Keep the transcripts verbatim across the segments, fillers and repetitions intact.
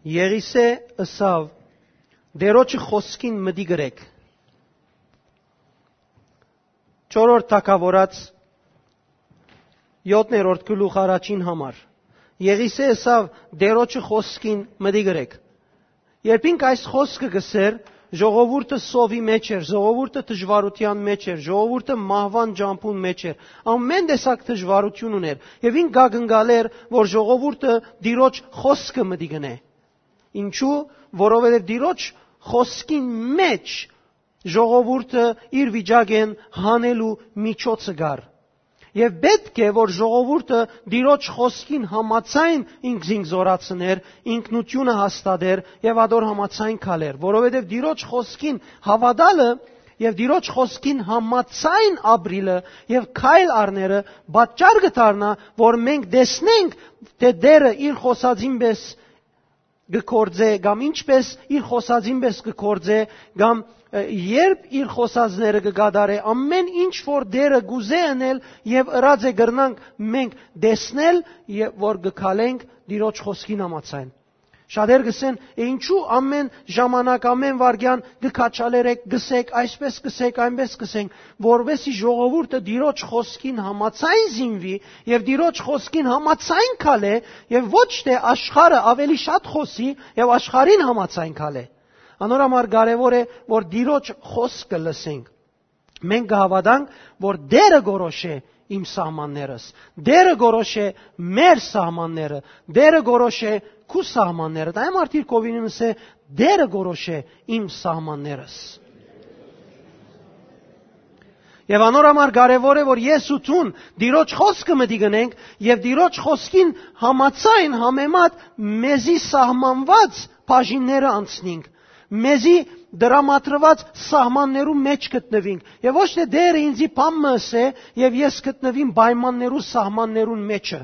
Եղիսէ ըսաւ. «Տէրոջը խօսքին մտիկ ըրէք»։ Չորրորդ թագաւորաց, յոթերորդ գլուխ, առաջին համար։ Եղիսէ ըսաւ. «Տէրոջը խօսքին մտիկ ըրէք»։ Երբ ինք այս խօսքը կ'ըսէր, ժողովուրդը սովի մեջ էր, ժողովուրդը դժուարութեան մեջ էր, ժողովուրդը մահուան ճամբուն մեջ էր, ամէն տեսակ դժուարութիւն ունէր, եւ ինք կ'ակնկալէր, որ ժողովուրդը Տիրոջ խօսքը մտիկ ընէ։ Ինչու՞, որովհետեւ Տիրոջ խօսքին մէջ ժողովուրդը իր վիճակէն հանելու միջոցը կար։ Եւ պէտք է, որ ժողովուրդը Տիրոջ խօսքին համաձայն ինքզինք զօրացնէր, ինքնութիւնը հաստատէր եւ ատոր համաձայն քալէր, որովհետեւ Տիրոջ խօսքին հաւատալը եւ Տիրոջ խօսքին համաձայն ապրիլը եւ քայլ առնելը պատճառ կը դառնայ, որ մենք տեսնենք, թէ Տէրը իր խօսածին պէս կը գործէ, կամ ինչպէս իր խօսածին պէս կը գործէ, կամ, ը, երբ իր խօսածները կը կատարէ, ամէն ինչ որ Տէրը կ'ուզէ ընել եւ ըրած է, կրնանք մենք տեսնել, եւ որ կը քալենք Տիրոջ խօսքին համաձայն։ Շատեր կ'ըսեն. «Է, ինչու ամէն ժամանակ, ամէն վայրկեան կը քաչալերեք, կ'ըսեք, այսպէս կ'ըսեք, այնպէս կ'ըսենք»։ Որպէս զի ժողովուրդը Տիրոջ խօսքին համաձայն զինուի եւ Տիրոջ խօսքին համաձայն քալէ, եւ ոչ թէ աշխարհը ավելի շատ խօսի եւ աշխարհին համաձայն քալէ։ Անոր համար կարեւոր է, որ Տիրոջ խօսքը լսենք։ Մենք կը հաւատանք, որ Տէրը կորոշէ իմ սահմաններս, Տէրը կորոշէ մեր սահմանները, Տէրը կորոշէ քու սահմանները։ Դա է մարդիկ կովինին ըսե. «Տէրը կորոշէ իմ սահմաններս»։ Եւ անոր համար կարեւոր է, որ ես ու դուն Տիրոջ խօսքը մտիկ ընենք եւ Տիրոջ խօսքին համաձայն, համեմատ մեզի սահմանված բաժինները անցնենք, մեզի դրամատրուած սահմաններու մէջ գտնուինք, եւ ոչ թէ Տէրը ինձի բան մը ըսէ եւ ես գտնուիմ պայմաններու, սահմաններուն մէջը։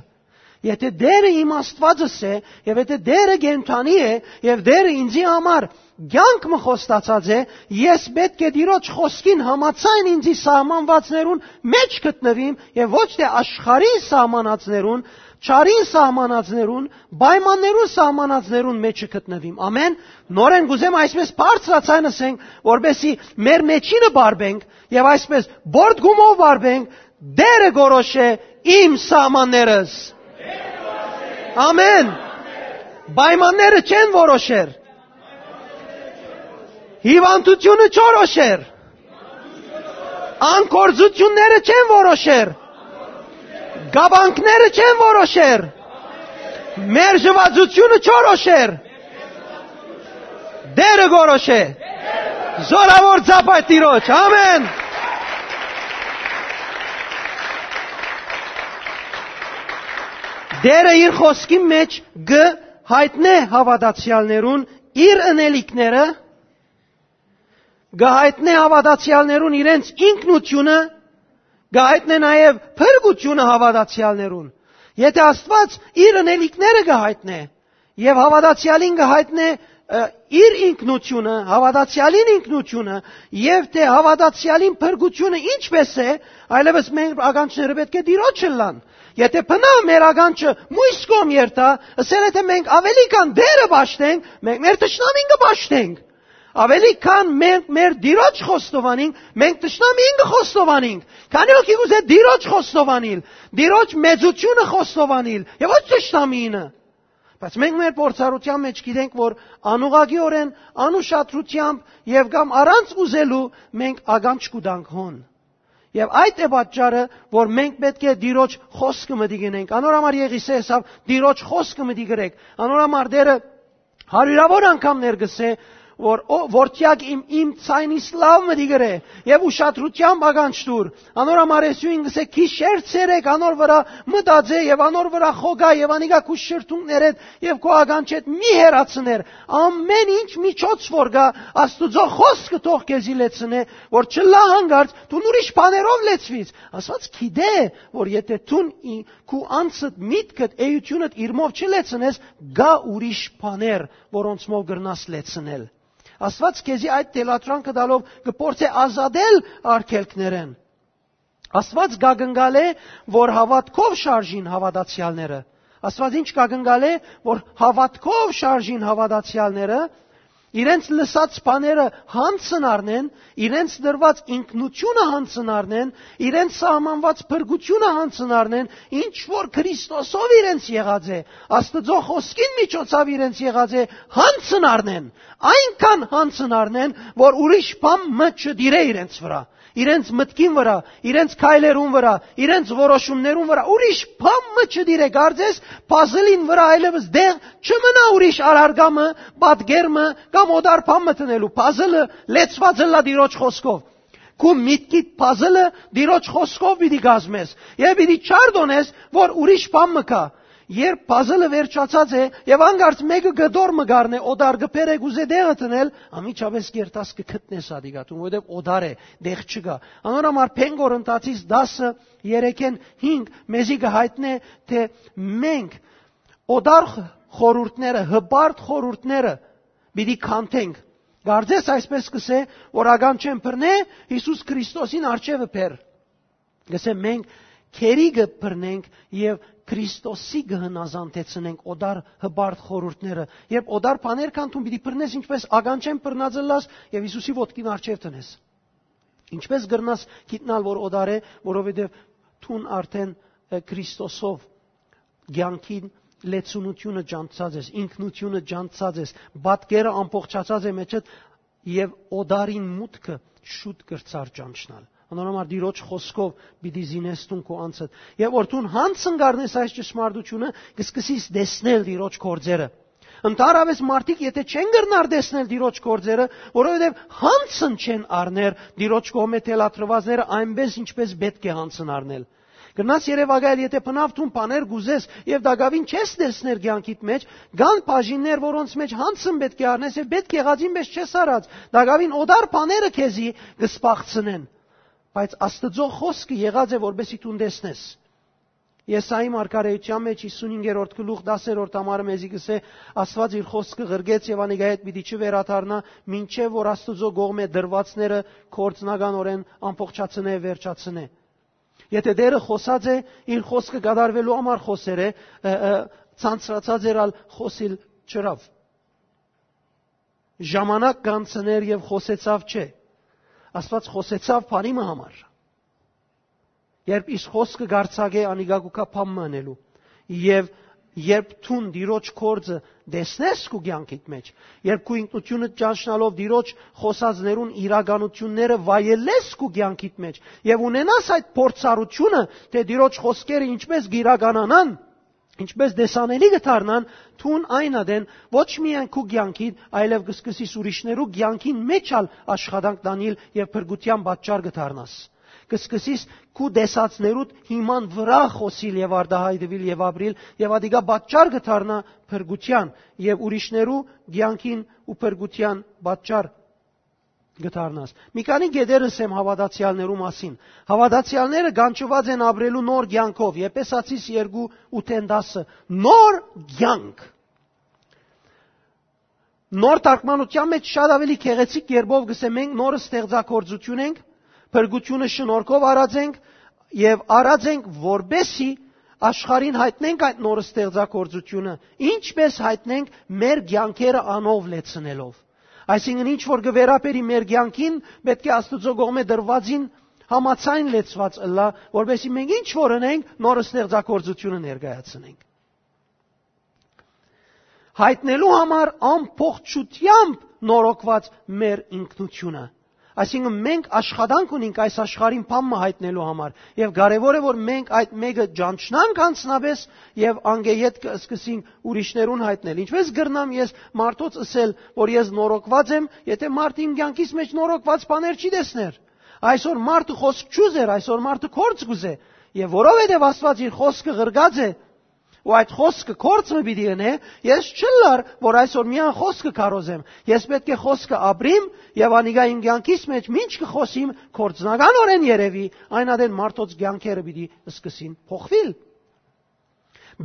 Եթէ Տէրը իմ Աստուածս է, եւ եթէ Տէրը կենդանի է, եւ Տէրը ինձի համար կեանք մը խոստացած է, ես պէտք է Տիրոջ խօսքին համաձայն ինձի սահմանվածներուն մէջ գտնուիմ, եւ ոչ թէ աշխարհին սահմանածներուն, չարին սահմանածներուն, պայմաններուն սահմանածներուն մէջը գտնուիմ։ Ամէն։ Նորէն կ'ուզեմ այսպես բարձրաձայն ըսենք, որպեսզի մեր մէջինը բարբենք եւ այսպես պոռթկումով բարբենք. «Տէրը կորոշէ իմ սահմաններս»։ Ամէն։ Պայմանները չեն որոշեր։ Հիվանդությունը չորոշեր։ Անկորձությունները չեն որոշեր։ Կապանքները չեն որոշեր։ Մերժուածությունը չորոշեր։ Տէրը կորոշէ։ Զորաւոր ծափ այդ Տիրոջ։ Ամէն։ Տէրը իր խօսքի մէջ կը յայտնէ հաւատացեալներուն իր ընելիքները, կը յայտնէ հաւատացեալներուն իրենց ինքնութիւնը, կը յայտնէ նաեւ փրկութիւնը հաւատացեալներուն։ Եթէ Աստուած իր ընելիքները կը յայտնէ, եւ հաւատացեալին կը յայտնէ, ը, իր ինքնութիւնը, հաւատացեալին ինքնութիւնը, եւ թէ հաւատացեալին փրկութիւնը ինչպէս է, այլեւս մեր ականջները պէտք է Տիրոջ ըլլան։ Եթէ բնա մեր ականջը մոյս կողմ երթայ, ըսել է թէ մենք աւելի քան Տէրը պաշտենք, մենք մեր թշնամին կը պաշտենք։ Աւելի քան մենք մեր Տիրոջ խոստովանենք, մենք թշնամին կը խոստովանենք։ Քանի՞ հոգի կ'ուզէ Տիրոջ խոստովանիլ, Տիրոջ մեծութիւնը խոստովանիլ, եւ ոչ թշնամինը։ Բայց մենք մեր փորձառութեան մէջ գիտենք, որ անուղղակիօրէն, անուշադրութեամբ եւ կամ առանց ուզելու մենք ականջ կու տանք հոն։ Եւ այդ է պատճառը, որ մենք պէտք է Տիրոջ խօսքը մտիկ ընենք։ Անոր համար Եղիսէ ըսաւ. «Տիրոջ խօսքը մտիկ ըրեք»։ Անոր համար Տէրը հարիւրաւոր անգամներ կ'ըսէ, որ, «Ո, որդեակ իմ, իմ ձայնիս լաւ մտիկ ըրէ եւ ուշադրութեամբ ականջ տուր»։ Անոր համար Եսուին կ'ըսէ. «Գիշեր ցերեկ անոր վրայ մտածէ եւ անոր վրայ խոկայ եւ անիկա քու շրթունքներէդ եւ քու ականջէդ մի հեռացներ։ Ամէն ինչ միջոց որ կայ, Աստուծոյ խօսքը թող քեզի լեցնէ, որ չըլլայ յանկարծ դուն ուրիշ բաներով լեցուիս»։ Աստուած գիտէ, որ եթէ դուն ի-, քու անձդ, միտքդ, էութիւնդ իրմով չլեցնես, կայ ուրիշ բաներ, որոնցմով կրնաս լեցնել։ Աստուած քեզի այդ թելադրանքը տալով կը փորձէ ազատել արգելքներէն։ Աստուած կ'ակնկալէ, որ հաւատքով շարժին հաւատացեալները։ Աստուած ինչ կակնկալէ, որ հաւատքով շարժին հաւատացեալները, իրենց լսած բաները յանձն առնեն, իրենց տրուած ինքնութիւնը յանձն առնեն, իրենց սահմանուած փրկութիւնը յանձն առնեն, ինչ որ Քրիստոսով իրենց եղած է, Աստուծոյ խօսքին միջոցաւ իրենց եղած է, յանձն առնեն, այնքան յանձն առնեն, որ ուրիշ բան մը չտիրէ իրենց վրայ, իրենց մտքին վրայ, իրենց քայլերուն վրայ, իրենց որոշումներուն վրայ, ուրիշ բան մը չտիրէ, կարծես puzzle-ին վրայ այլեւս դեղ չմնայ ուրիշ առարկայ մը, պատկեր մը կամ օտար բան մը դնելու։ Puzzle-ը լեցուած ըլլայ Տիրոջ խօսքով։ Քու միտքիդ puzzle-ը Տիրոջ խօսքով պիտի կազմես եւ պիտի չարտոնես, որ ուրիշ բան մը կայ։ Երբ puzzle-ը վերջացած է եւ անկարծ մէկը կտոր մը կ'առնէ օտար, կը բերէ, կ'ուզէ տեղը դնել, անմիջապէս կ'երթաս, կը գտնես ատիկա տուն, որովհետեւ օտար է, տեղ չկայ։ Անոր համար Բեն Կորնթացիս տասը, երեքէն հինգ մեզի կը յայտնէ, թէ մենք օտար խորհուրդները, հպարտ խորհուրդները պիտի քանդենք։ Կարծես այսպես կ'ըսէ, որ ականջէն բռնէ, Յիսուս Քրիստոսին առջեւը բեր։ Կ'ըսէ, մենք գերի կը բռնենք եւ Քրիստոսի կը հնազանդեցնենք օտար հպարտ խորհուրդները։ Երբ օտար բաներ քանդում, պիտի բռնես, ինչպես ականջէն բռնած ըլլաս, եւ Յիսուսի ոտքին առջեւ դնես։ Ինչպես կրնաս գիտնալ, որ օտար է, որովհետեւ դուն արդեն, ը, Քրիստոսով կեանքին լեցունութիւնը ճանչցած ես, ինքնութիւնը ճանչցած ես, պատկերը ամբողջացած է մեջդ, եւ օտարին մուտքը շուտ կրցար ճանչնալ։ Անոր համար Տիրոջ խօսքով պիտի զինես դուն քու անձդ։ Եւ որ դուն յանձն կ'առնես այս ճշմարտութիւնը, կ'սկսես տեսնել Տիրոջ գործերը։ Ընդհանրապես մարդիկ, եթե չեն կրնար տեսնել Տիրոջ գործերը, որովհետեւ յանձն չեն առներ Տիրոջ կողմէ թելադրուածները այնպես, ինչպես պէտք է յանձն առնել։ Կրնաս երեւակայել, եթե բնաւ դուն բաներ կ'ուզես եւ տակաւին չես տեսներ կեանքիդ մէջ, կան բաժիններ, որոնց մէջ յանձն պէտք է առնես եւ պէտք եղածին պես չես առած, տակաւին օտար բաները քեզի կը սպաղցնեն, բայց Աստուծոյ խօսքը եղած է, որպեսզի դուն տեսնես։ Եսայի մարգարէութեան մէջ հիսունհինգերորդ գլուխ, տասերորդ համարը մեզի կ'ըսէ. «Աստուած իր խօսքը ղրկեց եւ անիկա հետ պիտի չվերադառնայ, մինչեւ որ Աստուծոյ կողմէ տրուածները գործնականօրէն ամբողջացնէ, վերջացնէ»։ Եթե Տէրը խօսած է, իր խօսքը կատարուելու համար խօսեր է, ը, ը, ցանցրացած էր, ալ խօսիլ չըրաւ։ Ժամանակ կանցներ եւ խօսեցաւ, չէ։ Աստուած խօսեցաւ բանի մը համար։ Երբ իր խօսքը կ'արձակէ, անիկա կու գայ բան մը ընելու։ Եւ երբ դուն Տիրոջ գործը տեսնես քու կեանքիդ մէջ, երբ քու ինքնութիւնդ ճանչնալով Տիրոջ խօսածներուն իրականութիւնները վայելես քու կեանքիդ մէջ եւ ունենաս այդ փորձառութիւնը, թէ Տիրոջ խօսքերը ինչպես կ'իրականանան, ինչպես տեսանելի կը դառնան, դուն այն ատեն ոչ միայն քու կեանքիդ, այլեւ կը սկսես ուրիշներու կեանքին մէջ ալ աշխատանք տանիլ եւ փրկութեան պատճառ կը դառնաս։ Կը սկսես քու տեսածներուդ հիման վրայ խօսիլ եւ արտայայտուիլ եւ ապրիլ, եւ ատիկա պատճառ կը դառնայ փրկութեան եւ ուրիշներու կեանքին ու փրկութեան պատճառ կը դառնաս։ Մի քանի կետեր ըսեմ հաւատացեալներու մասին։ Հաւատացեալները կանչուած են ապրելու նոր կեանքով, Եփեսացիս երկու, ութէն տասը։ Նոր կեանք։ Նոր թարգմանութեան մէջ շատ աւելի գեղեցիկ կերպով կ'ըսէ. «Մենք նոր ստեղծագործութիւն ենք, փրկութիւնը շնորհքով առած ենք եւ առած ենք, որպեսզի աշխարհին յայտնենք այդ նոր ստեղծագործութիւնը, ինչպես յայտնենք, մեր կեանքերը անով լեցնելով»։ Այսինքն, ինչ որ կը վերաբերի մեր կեանքին, պէտք է Աստուծոյ կողմէ տրուածին համաձայն լեցուած ըլլայ, որպեսզի մենք ինչ որ ընենք, նոր ստեղծագործութիւնը ներկայացնենք։ Յայտնելու համար ամբողջութեամբ նորոգուած մեր ինքնութիւնը։ Այսինքն, մենք աշխատանք ունենք այս աշխարհին բան մը յայտնելու համար, եւ կարեւոր է, որ մենք այդ մեկը ճանչնանք անձնապէս եւ անգէ ետքը սկսենք ուրիշներուն յայտնել։ Ինչպես կրնամ ես մարդոց ըսել, որ ես նորոգուած եմ, եթե մարդ իմ կեանքիս մէջ նորոգուած բաներ չի տեսներ։ Այսօր մարդը խօսք չուզեր, այսօր մարդը գործ կուզէ, եւ որովհետեւ Աստուած իր խօսքը ղրկած է, ու այդ խօսքը գործ մը պիտի ընէ, ես չըլլար, որ այսօր միայն խօսքը քարոզեմ։ Ես պէտք է խօսքը ապրիմ եւ անիկա իմ կեանքիս մէջ մինչ կը խօսիմ, գործնականօրէն երեւի, այն ատեն մարդոց կեանքերը պիտի սկսին փոխուիլ։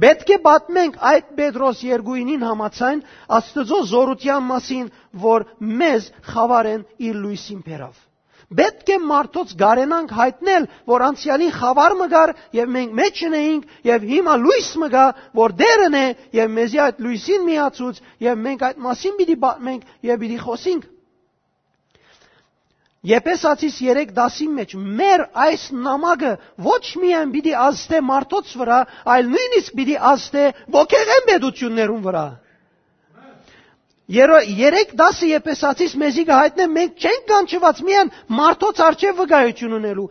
Պէտք է պատմենք այդ Պետրոս երկուինին համաձայն Աստուծոյ զօրութեան մասին, որ մեզ խաւարէն իր լոյսին բերաւ։ Պէտք է մարդոց կարենանք յայտնել, որ անցեալին խաւար մը կար եւ մենք մէջ ընէինք, եւ հիմա լոյս մը կայ, որ Տէրն է, եւ մեզի այդ լոյսին միացուց, եւ մենք այդ մասին պիտի պատմենք եւ պիտի խօսենք։ Եփեսացիս երեք տասին մէջ, մեր այս նամակը ոչ միայն պիտի ազդէ մարդոց վրայ, այլ նոյնիսկ պիտի ազդէ ոգեղէն պետութիւններուն վրայ։ Երո-, երեք տասը Եփեսացիս մեզի կը յայտնէ, մենք չենք կանչուած միայն մարդոց առջեւ վկայութիւն ընելու։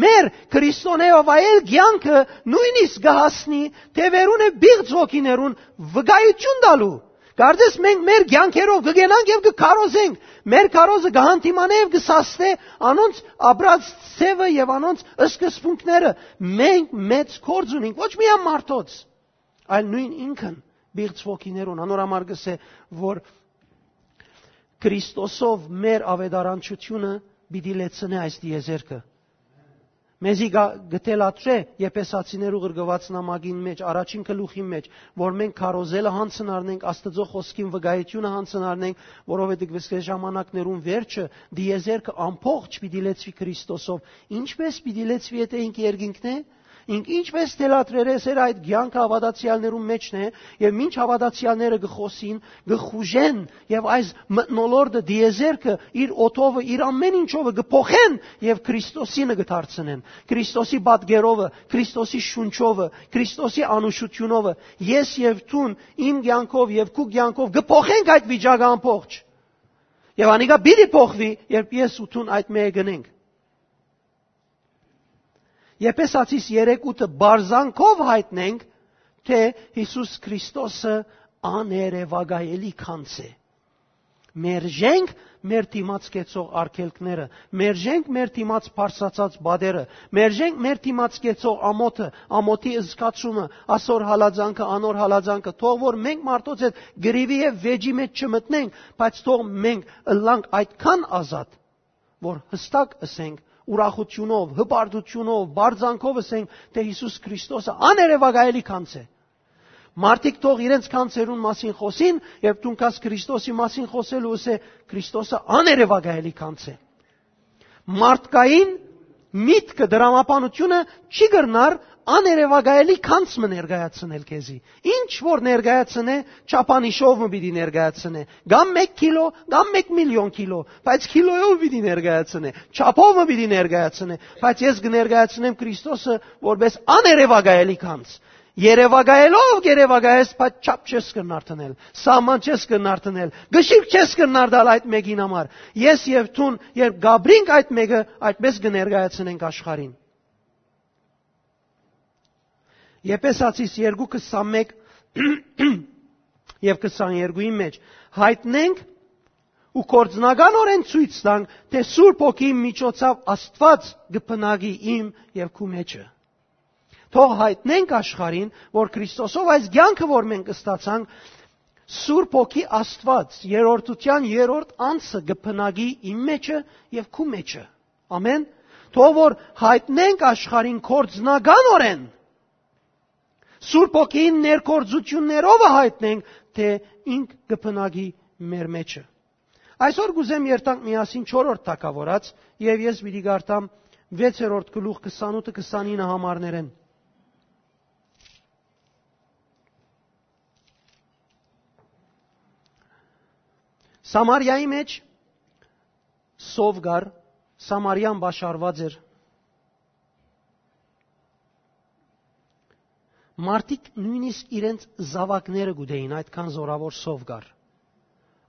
Մեր Քրիստոնէ վայել կեանքը նոյնիսկ կը հասնի թեւերուն եւ պիղծ ոգիներուն վկայութիւն տալու։ Կարծես մենք մեր կեանքերով կը գնանք եւ կը քարոզենք։ Մեր քարոզը կը հանդիմանէ եւ կը սաստէ անոնց ապրած ձեւը եւ անոնց սկզբունքները։ Մենք մեծ գործ ունենք, ոչ միայն մարդոց, այլ նոյն ինքն պիղծ ոգիներուն։ Անոր համար կ'ըսէ, որ Քրիստոսով մեր աւետարանչութիւնը պիտի լեցնէ այս տիեզերքը։ Մեզի գա-, կը թելադրէ Եփեսացիներու ղրկուած նամակին մէջ, առաջին գլուխին մէջ, որ մենք քարոզելը յանցն առնենք, Աստուծոյ խօսքին վկայութիւնը յանցն առնենք, որովհետեւ կ'ըսէ, ժամանակներուն վերջը, տիեզերքը ամբողջ պիտի լեցուի Քրիստոսով։ Ինչպէս պիտի լեցուի, եթէ ինք երկինքն է, ինք ինչպէս թելադրեր էր, այդ կեանքը հաւատացեալներուն մէջն է, եւ մինչ հաւատացեալները կը խօսին, կը խուժեն, եւ այս մթնոլորտը, տիեզերքը, իր օդովը, իր ամէն ինչովը կը փոխեն եւ Քրիստոսինը կը դարձնեն։ Քրիստոսի պատկերովը, Քրիստոսի շունչովը, Քրիստոսի անուշութիւնովը, ես եւ դուն իմ կեանքով եւ քու կեանքով կը փոխենք այդ վիճակը ամբողջ։ Եւ անիկա պիտի փոխուի, երբ ես ու դուն այդ մէկը կ'ընենք։ Եփեսացիս երեք ութը, բարձանքով յայտնենք, թէ Յիսուս Քրիստոսը աներեւակայելի գանձ է։ Մերժենք մեր դիմաց կեցող արգելքները, մերժենք մեր դիմաց բարձրացած պատերը, մերժենք մեր դիմաց կեցող ամոթը, ամոթի զգացումը, ասոր հալածանքը, անոր հալածանքը, թող որ մենք մարդոց հետ կռիւի եւ վէճի մէջ չմտնենք, բայց թող մենք ըլլանք այդքան ազատ, որ յստակ ըսենք, ուրախութիւնով, հպարտութիւնով, բարձանքով ըսենք, թէ Յիսուս Քրիստոսը աներեւակայելի գանձ է։ Մարդիկ թող իրենց գանձերուն մասին խօսին, երբ դուն գաս Քրիստոսի մասին խօսելու, ըսէ, Քրիստոսը աներեւակայելի գանձ է։ Մարդկային միտքը, դրամաբանությունը չի կրնար աներեւակայելի գանձ մը ներկայացնել քեզի։ Ինչ որ ներկայացնէ, չափանիշով մը պիտի ներկայացնէ, կամ մեկ քիլո, կամ մեկ միլիոն քիլո, բայց քիլոյով պիտի ներկայացնէ, չափով մը պիտի ներկայացնէ, բայց ես կը ներկայացնեմ Քրիստոսը որպես աներեւակայելի գանձ։ Երեւակայելով կ'երեւակայես, բայց չափ չես կրնար դնել, սահման չես կրնար դնել, կշիռք չես կրնար տալ այդ մէկին համար։ Ես եւ դուն, երբ կ'ապրինք այդ մէկը, այդպես կը ներկայացնենք աշխարհին։ Եփեսացիս երկու քսանմեկ եւ քսաներկուին մէջ, յայտնենք ու գործնականօրէն ցոյց տանք, թէ Սուրբ Հոգիին միջոցաւ Աստուած կը բնակի իմ եւ քու մէջը։ Թող յայտնենք աշխարհին, որ Քրիստոսով այս կեանքը, որ մենք ստացանք, Սուրբ Հոգի Աստուած, երրորդութեան երրորդ անձը կը բնակի իմ մէջը եւ քու մէջը։ Ամեն։ Թող որ յայտնենք աշխարհին գործնականօրէն, Սուրբ Հոգիին ներգործութիւններովը յայտնենք, թէ ինք կը բնակի մեր մէջը։ Այսօր կ'ուզեմ երթանք միասին չորրորդ թագաւորաց, եւ ես պիտի կարդամ վեցերորդ գլուխ քսանութը քսանինը համարներէն։ Սամարիայի մէջ սով կար, Սամարիան պաշարուած էր։ Մարդիկ նոյնիսկ իրենց զաւակները կ'ուտէին, այդքան զօրաւոր սով կար։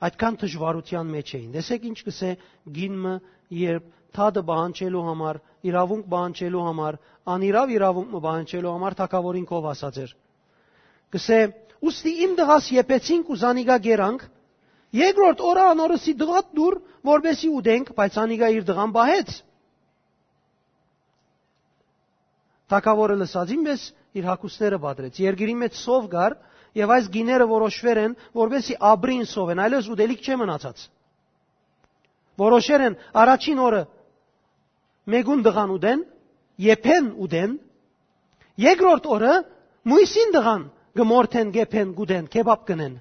Այդքան դժուարութեան մէջ էին։ Տեսեք ինչ կ'ըսէ կին մը, երբ դատը պահանջելու համար, իրաւունք պահանջելու համար, անիրաւ իրաւունք մը պահանջելու համար թագաւորին քով ասած էր։ Կ'ըսէ. «Ուստի իմ տղաս եփեցինք ու զանիկա կերանք, երկրորդ օրը անոր ըսի. "Տղադ տուր, որպեսզի ուտենք", բայց անիկա իր տղան պահեց»։ Թագաւորը լսածին պէս իր հագուստները պատրեց։ Երկրի մեջ սով կար, եւ այս գիները որոշուեր են, որպեսզի ապրին սովեն, այլեւս ուտելիք չէ մնացած։ Որոշեր են առաջին օրը մէկուն տղան ուտեն, եփեն ուտեն, երկրորդ օրը մոյսին տղան կը մորթեն, կ'եփեն, կ'ուտեն, քեբապ կ'ընեն։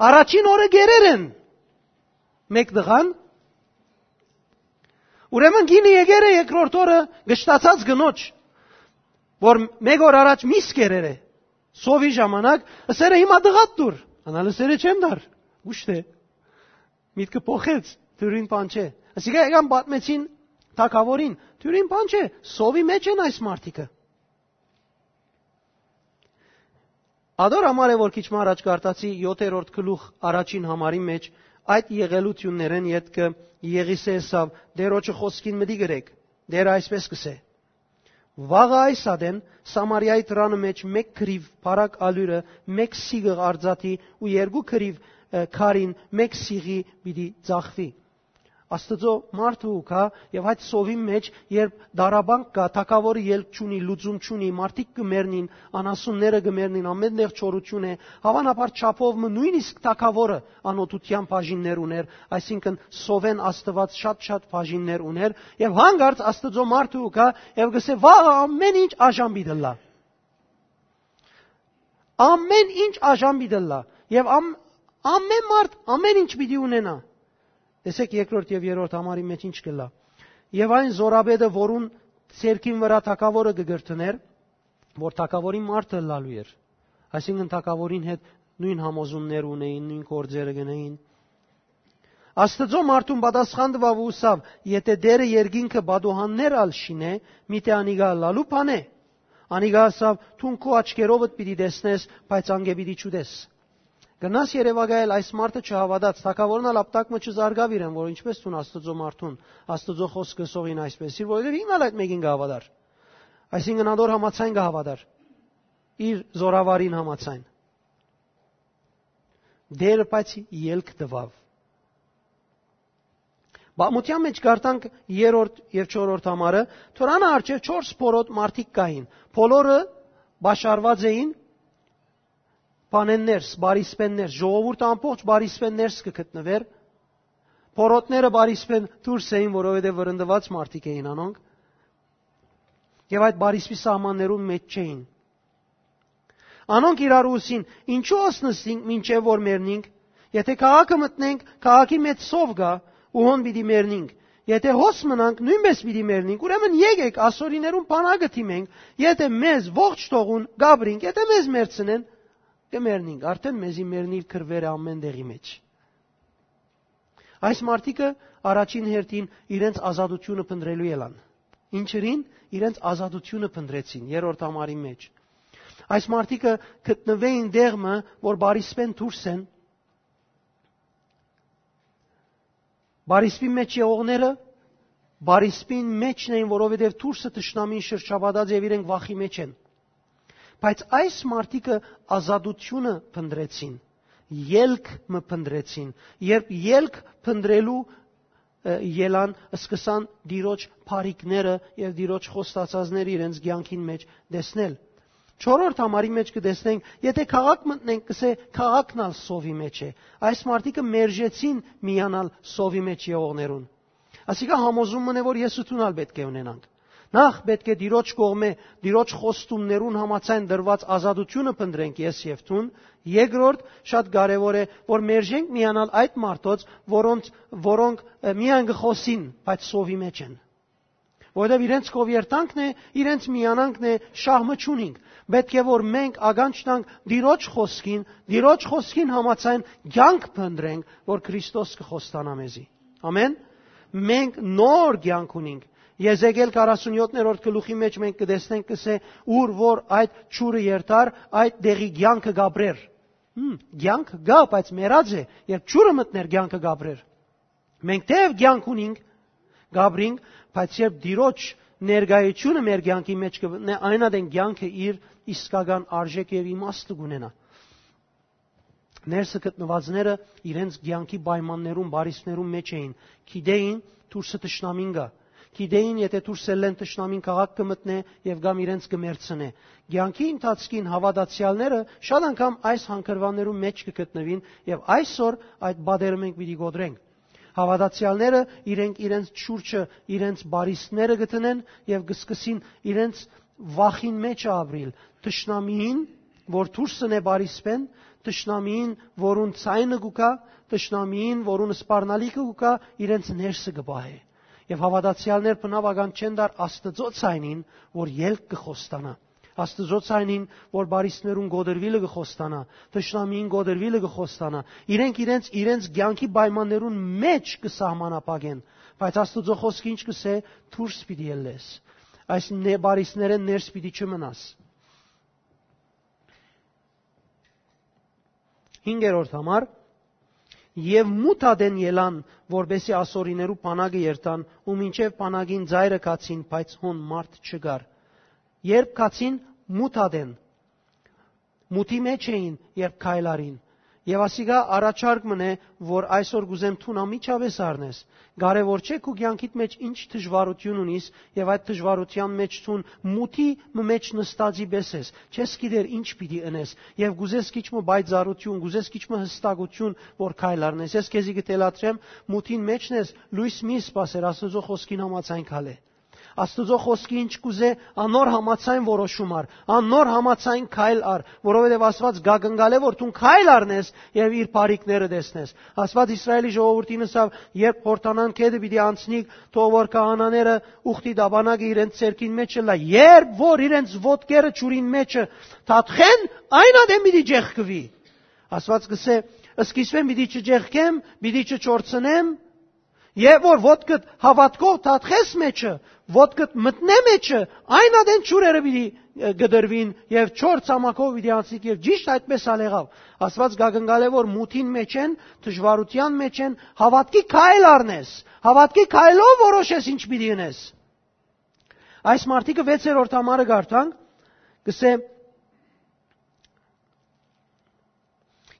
Առաջին օրը կերեր են մէկ տղան, Ուրեմն կինը եկեր է երկրորդ օրը կշտացած կնոջ, որ մէկ օր առաջ միս կերեր է, սովի ժամանակ, ըսեր է, «Հիմա տղադ տուր»։ Անալ ըսեր է, «Չեմ տար»։ Ուշ է, միտքը փոխեց, դուրին բան չէ։ Ասիկա եկան պատմեցին թագավորին, դուրին բան չէ, սովի մեջ են այս մարդիկը։ Ադոր համար է, որ քիչ մը առաջ կարտացի յոթերորդ գլուխ առաջին համարի մեջ այդ եղելութիւններէն ետքը Եղիսէ ըսաւ. «Տէրոջը խօսքին մտի գրեք, Տէրը այսպէս կ'ըսէ. Վաղը այս ատեն Սամարիայի դրանը մեջ մէկ քրիւ բարակ ալիւրը, մէկ սիղղ արծաթի ու երկու քրիւ, ը, քարին մէկ սիղի պիտի ծախուի»։ Աստուծոյ մարդը ու գայ, եւ այդ սովին մեջ, երբ դարաբանք կայ, թագաւորը ելք չունի, լուծում չունի, մարդիկ կը մեռնին, անասունները կը մեռնին, ամէն տեղ չորութիւն է, հաւանաբար չափով մը նոյնիսկ թագաւորը անօթութեան բաժիններ ունէր, այսինքն սովէն Աստուած շատ-շատ բաժիններ ունէր, եւ հանկարծ Աստուծոյ մարդը ու գայ, եւ կ'ըսէ. «Վաղը ամէն ինչ աժամբի դլլայ»։ Ամէն ինչ աժամբի դլլայ, եւ ամ-, ամէն մարդ ամէն ինչ պիտի ունենայ։ Տեսեք, երկրորդ եւ երրորդ համարի մեջ ինչ կ'ըլլայ։ Եւ այն զորապետը, որուն ձեռքին վրայ թագաւորը կը կրթներ, որ թագաւորին մարդը ըլլալու էր, այսինքն թագաւորին հետ նոյն համոզումներ ունէին, նոյն գործերը կ'ընէին։ Աստուծոյ մարդուն պատասխան տուաւ ու ըսաւ. «Եթէ Տէրը երկինքը պատուհաններ ալ շինէ, միթէ անիկա ըլլալու բան է»։ Անիկա ըսաւ. «Դուն քու աչքերովդ պիտի տեսնես, բայց անկէ պիտի չուտես»։ Կրնաս երեւակայել, այս մարդը չհաւատաց, թագաւորն ալ ապտակ մը չզարգաւ իրեն, որ ինչպէս դուն Աստուծոյ մարդուն, Աստուծոյ խօսքը սողին այսպէս, իր որովհետեւ ինքն ալ այդ մէկին կը հաւատար։ Այսինքն ադոր համաձայն կը հաւատար, իր զորավարին համաձայն։ Տէրը բայց ելք տուաւ։ Պատմութեան մեջ կ'արտանք երրորդ եւ չորրորդ համարը, Թորանը առջեւ չորս փորոտ մարդիկ կային, բոլորը պաշարված էին բանեն ներս, բարիսպեն ներս, ժողովուրդը ամբողջ բարիսպեն ներս կը գտնուէր, փորոտները բարիսպեն դուրս էին, որովհետեւ վրընդուած մարդիկ էին անոնք, եւ այդ բարիսպի սահմաններուն մեջ չէին։ Անոնք իրարու ըսին. «Ինչո՞ւ ըսնստինք մինչեւ որ մեռնինք։ Եթէ քաղաքը մտնենք, քաղաքի մեջ սով կայ, ու հոն պիտի մեռնինք։ Եթէ հոս մնանք, նոյնպէս պիտի մեռնինք։ Ուրեմն եկէք, ասորիներուն բանակը դիմենք, եթէ մեզ ողջ թողուն, կ'ապրինք, եթէ մեզ մեռցնեն, կը մեռնինք»։ Արդէն մեզի մեռնիլ կռուեր է ամէն տեղի մեջ։ Այս մարդիկը առաջին հերթին իրենց ազատութիւնը փնտռելու ելան։ Ինչերին իրենց ազատութիւնը փնտռեցին երրորդ համարի մեջ։ Այս մարդիկը գտնուէին տեղ մը, որ բարիսպեն դուրս են, բարիսպի մեջ եղողները բարիսպին մեջն էին, որովհետեւ դուրսը թշնամին շրջապատած եւ իրենք վախի մեջ են։ Բայց այս մարդիկը ազատութիւնը փնտռեցին, ելք մը փնտռեցին, երբ ելք փնտռելու, ը, ելան, սկսան Տիրոջ բարիքները եւ Տիրոջ խոստացածները իրենց կեանքին մեջ տեսնել։ Չորրորդ համարի մեջ կը տեսնենք, եթէ քաղաք մտնենք, կ'ըսէ, քաղաքն ալ սովի մեջ է։ Այս մարդիկը մերժեցին միանալ սովի մեջ եղողներուն։ Ասիկա համոզում մըն է, որ ես ու դուն ալ պէտք է ունենանք։ Նախ պէտք է Տիրոջ կողմէ, Տիրոջ խոստումներուն համաձայն տրուած ազատութիւնը փնտռենք ես եւ դուն։ Երկրորդ, շատ կարեւոր է, որ մերժենք միանալ այդ մարդոց, որոնց, որոնք, ը, միայն կը խօսին, բայց սովի մեջ են։ Որովհետեւ իրենց կով երթանքն է, իրենց միանանքն է, շահ մը չունինք։ Պէտք է որ մենք ականջ տանք Տիրոջ խօսքին, Տիրոջ խօսքին համաձայն կեանք փնտռենք, որ Քրիստոս կը խոստանայ մեզի։ Ամէն։ Մենք նոր կեանք ունինք։ Եզեկիել քառասունյոթերորդ գլուխի մեջ մենք կը տեսնենք, կ'ըսէ, ուր որ այդ ջուրը երթար, այդ տեղի կեանքը կ'ապրեր։ Հմ, կեանք կայ, բայց մեռած է, երբ ջուրը մտներ, կեանքը կ'ապրեր։ Մենք թեեւ կեանք ունինք, կ'ապրինք, բայց երբ Տիրոջ ներկայությունը մեր կեանքի մեջ կը մտնէ, այն ատեն կեանքը իր իսկական արժեքը եւ իմաստը կունենայ։ Ներսը գտնուածները իրենց կեանքի պայմաններուն, բարիսպներուն մեջ էին, գիտեին դուրսը թշնամին կայ, գիտեին, եթէ դուրս ելլեն, թշնամին քաղաք կը մտնէ եւ կամ իրենց կը մեռցնէ։ Կեանքի ընթացքին հաւատացեալները շատ անգամ այս հանգրուաններուն մեջ կը գտնուին եւ այսօր այդ պատերը մենք պիտի կոտրենք։ Հաւատացեալները իրենք իրենց շուրջը, իրենց բարիսպները կը դնեն եւ կը սկսին իրենց վախին մեջ ապրիլ։ Թշնամիին, որ դուրսն է բարիսպեն, թշնամիին, որուն ձայնը կու գայ, թշնամիին, որուն սպառնալիքը կու գայ, իրենց ներսը կը պահէ։ Եւ հաւատացեալներ բնաւ ականջ չեն տար Աստուծոյ ցայնին, որ ելք կը խոստանայ։ Աստուծոյ ցայնին, որ պարիսներուն կոտրուիլը կը խոստանայ, թշնամիին կոտրուիլը կը խոստանայ։ Իրենք իրենց, իրենց կեանքի պայմաններուն մէջ կը սահմանափակեն, բայց Աստուծոյ խօսքը ինչ կ'ըսէ, դուրս պիտի ելլես։ Այս ն-, պարիսներէն ներս պիտի չմնաս։ Հինգերորդ համար, եւ մութ ատեն ելան, որպէսզի ասորիներու բանակը երթան, ու մինչեւ բանակին ծայրը գացին, բայց հոն մարդ չկար։ Երբ գացին մութ ատեն, մութի մէջ էին, երբ քայլ առին։ Եւ ասիկա առաջարկ մըն է, որ այսօր կ'ուզեմ դուն անմիջապէս առնես։ Կարեւոր չէ քու կեանքիդ մէջ ինչ դժուարութիւն ունիս, եւ այդ դժուարութեան մէջ դուն մութի մը մէջ նստածի պէս ես, չես գիտեր ինչ պիտի ընես, եւ կ'ուզես քիչ մը պայծառութիւն, կ'ուզես քիչ մը յստակութիւն, որ քայլ առնես։ Ես քեզի կը թելադրեմ, մութին մէջն ես, լոյս մի սպասեր, Աստուծոյ խօսքին համաձայն քալէ։ Աստուծոյ խօսքը ինչ կ'ուզէ, անոր համաձայն որոշում առ, անոր համաձայն քայլ առ, որովհետեւ Աստուած կ'ակնկալէ, որ դուն քայլ առնես եւ իր բարիքները տեսնես։ Աստուած Իսրայէլի ժողովուրդին ըսաւ, երբ Յորդանան գետը պիտի անցնիք, թող որ քահանաները ուխտի տապանակը իրենց ձեռքին մէջ ըլլայ, երբ որ իրենց ոտքերը ջուրին մէջը թաթխեն, այն ատեն պիտի ճեղքուի։ Աստուած կ'ըսէ, սկիզբէն պիտի չճեղքեմ, պիտի չչորցնեմ, եւ որ ոտքդ հաւատքով թաթխես մէջը, ոտքդ մտնէ մէջը, այն ատեն ջուրերը պիտի, ը, կտրուին եւ չոր ցամաքով պիտի անցնիք, եւ ճիշդ այդպէս ալ եղաւ։ Աստուած կ'ակնկալէ, որ մութին մէջ են, դժուարութեան մէջ են, հաւատքի քայլ առնես, հաւատքի քայլով որոշես ինչ պիտի ընես։ Այս մարդիկը վեցերորդ համարը կարդանք, կ'ըսէ,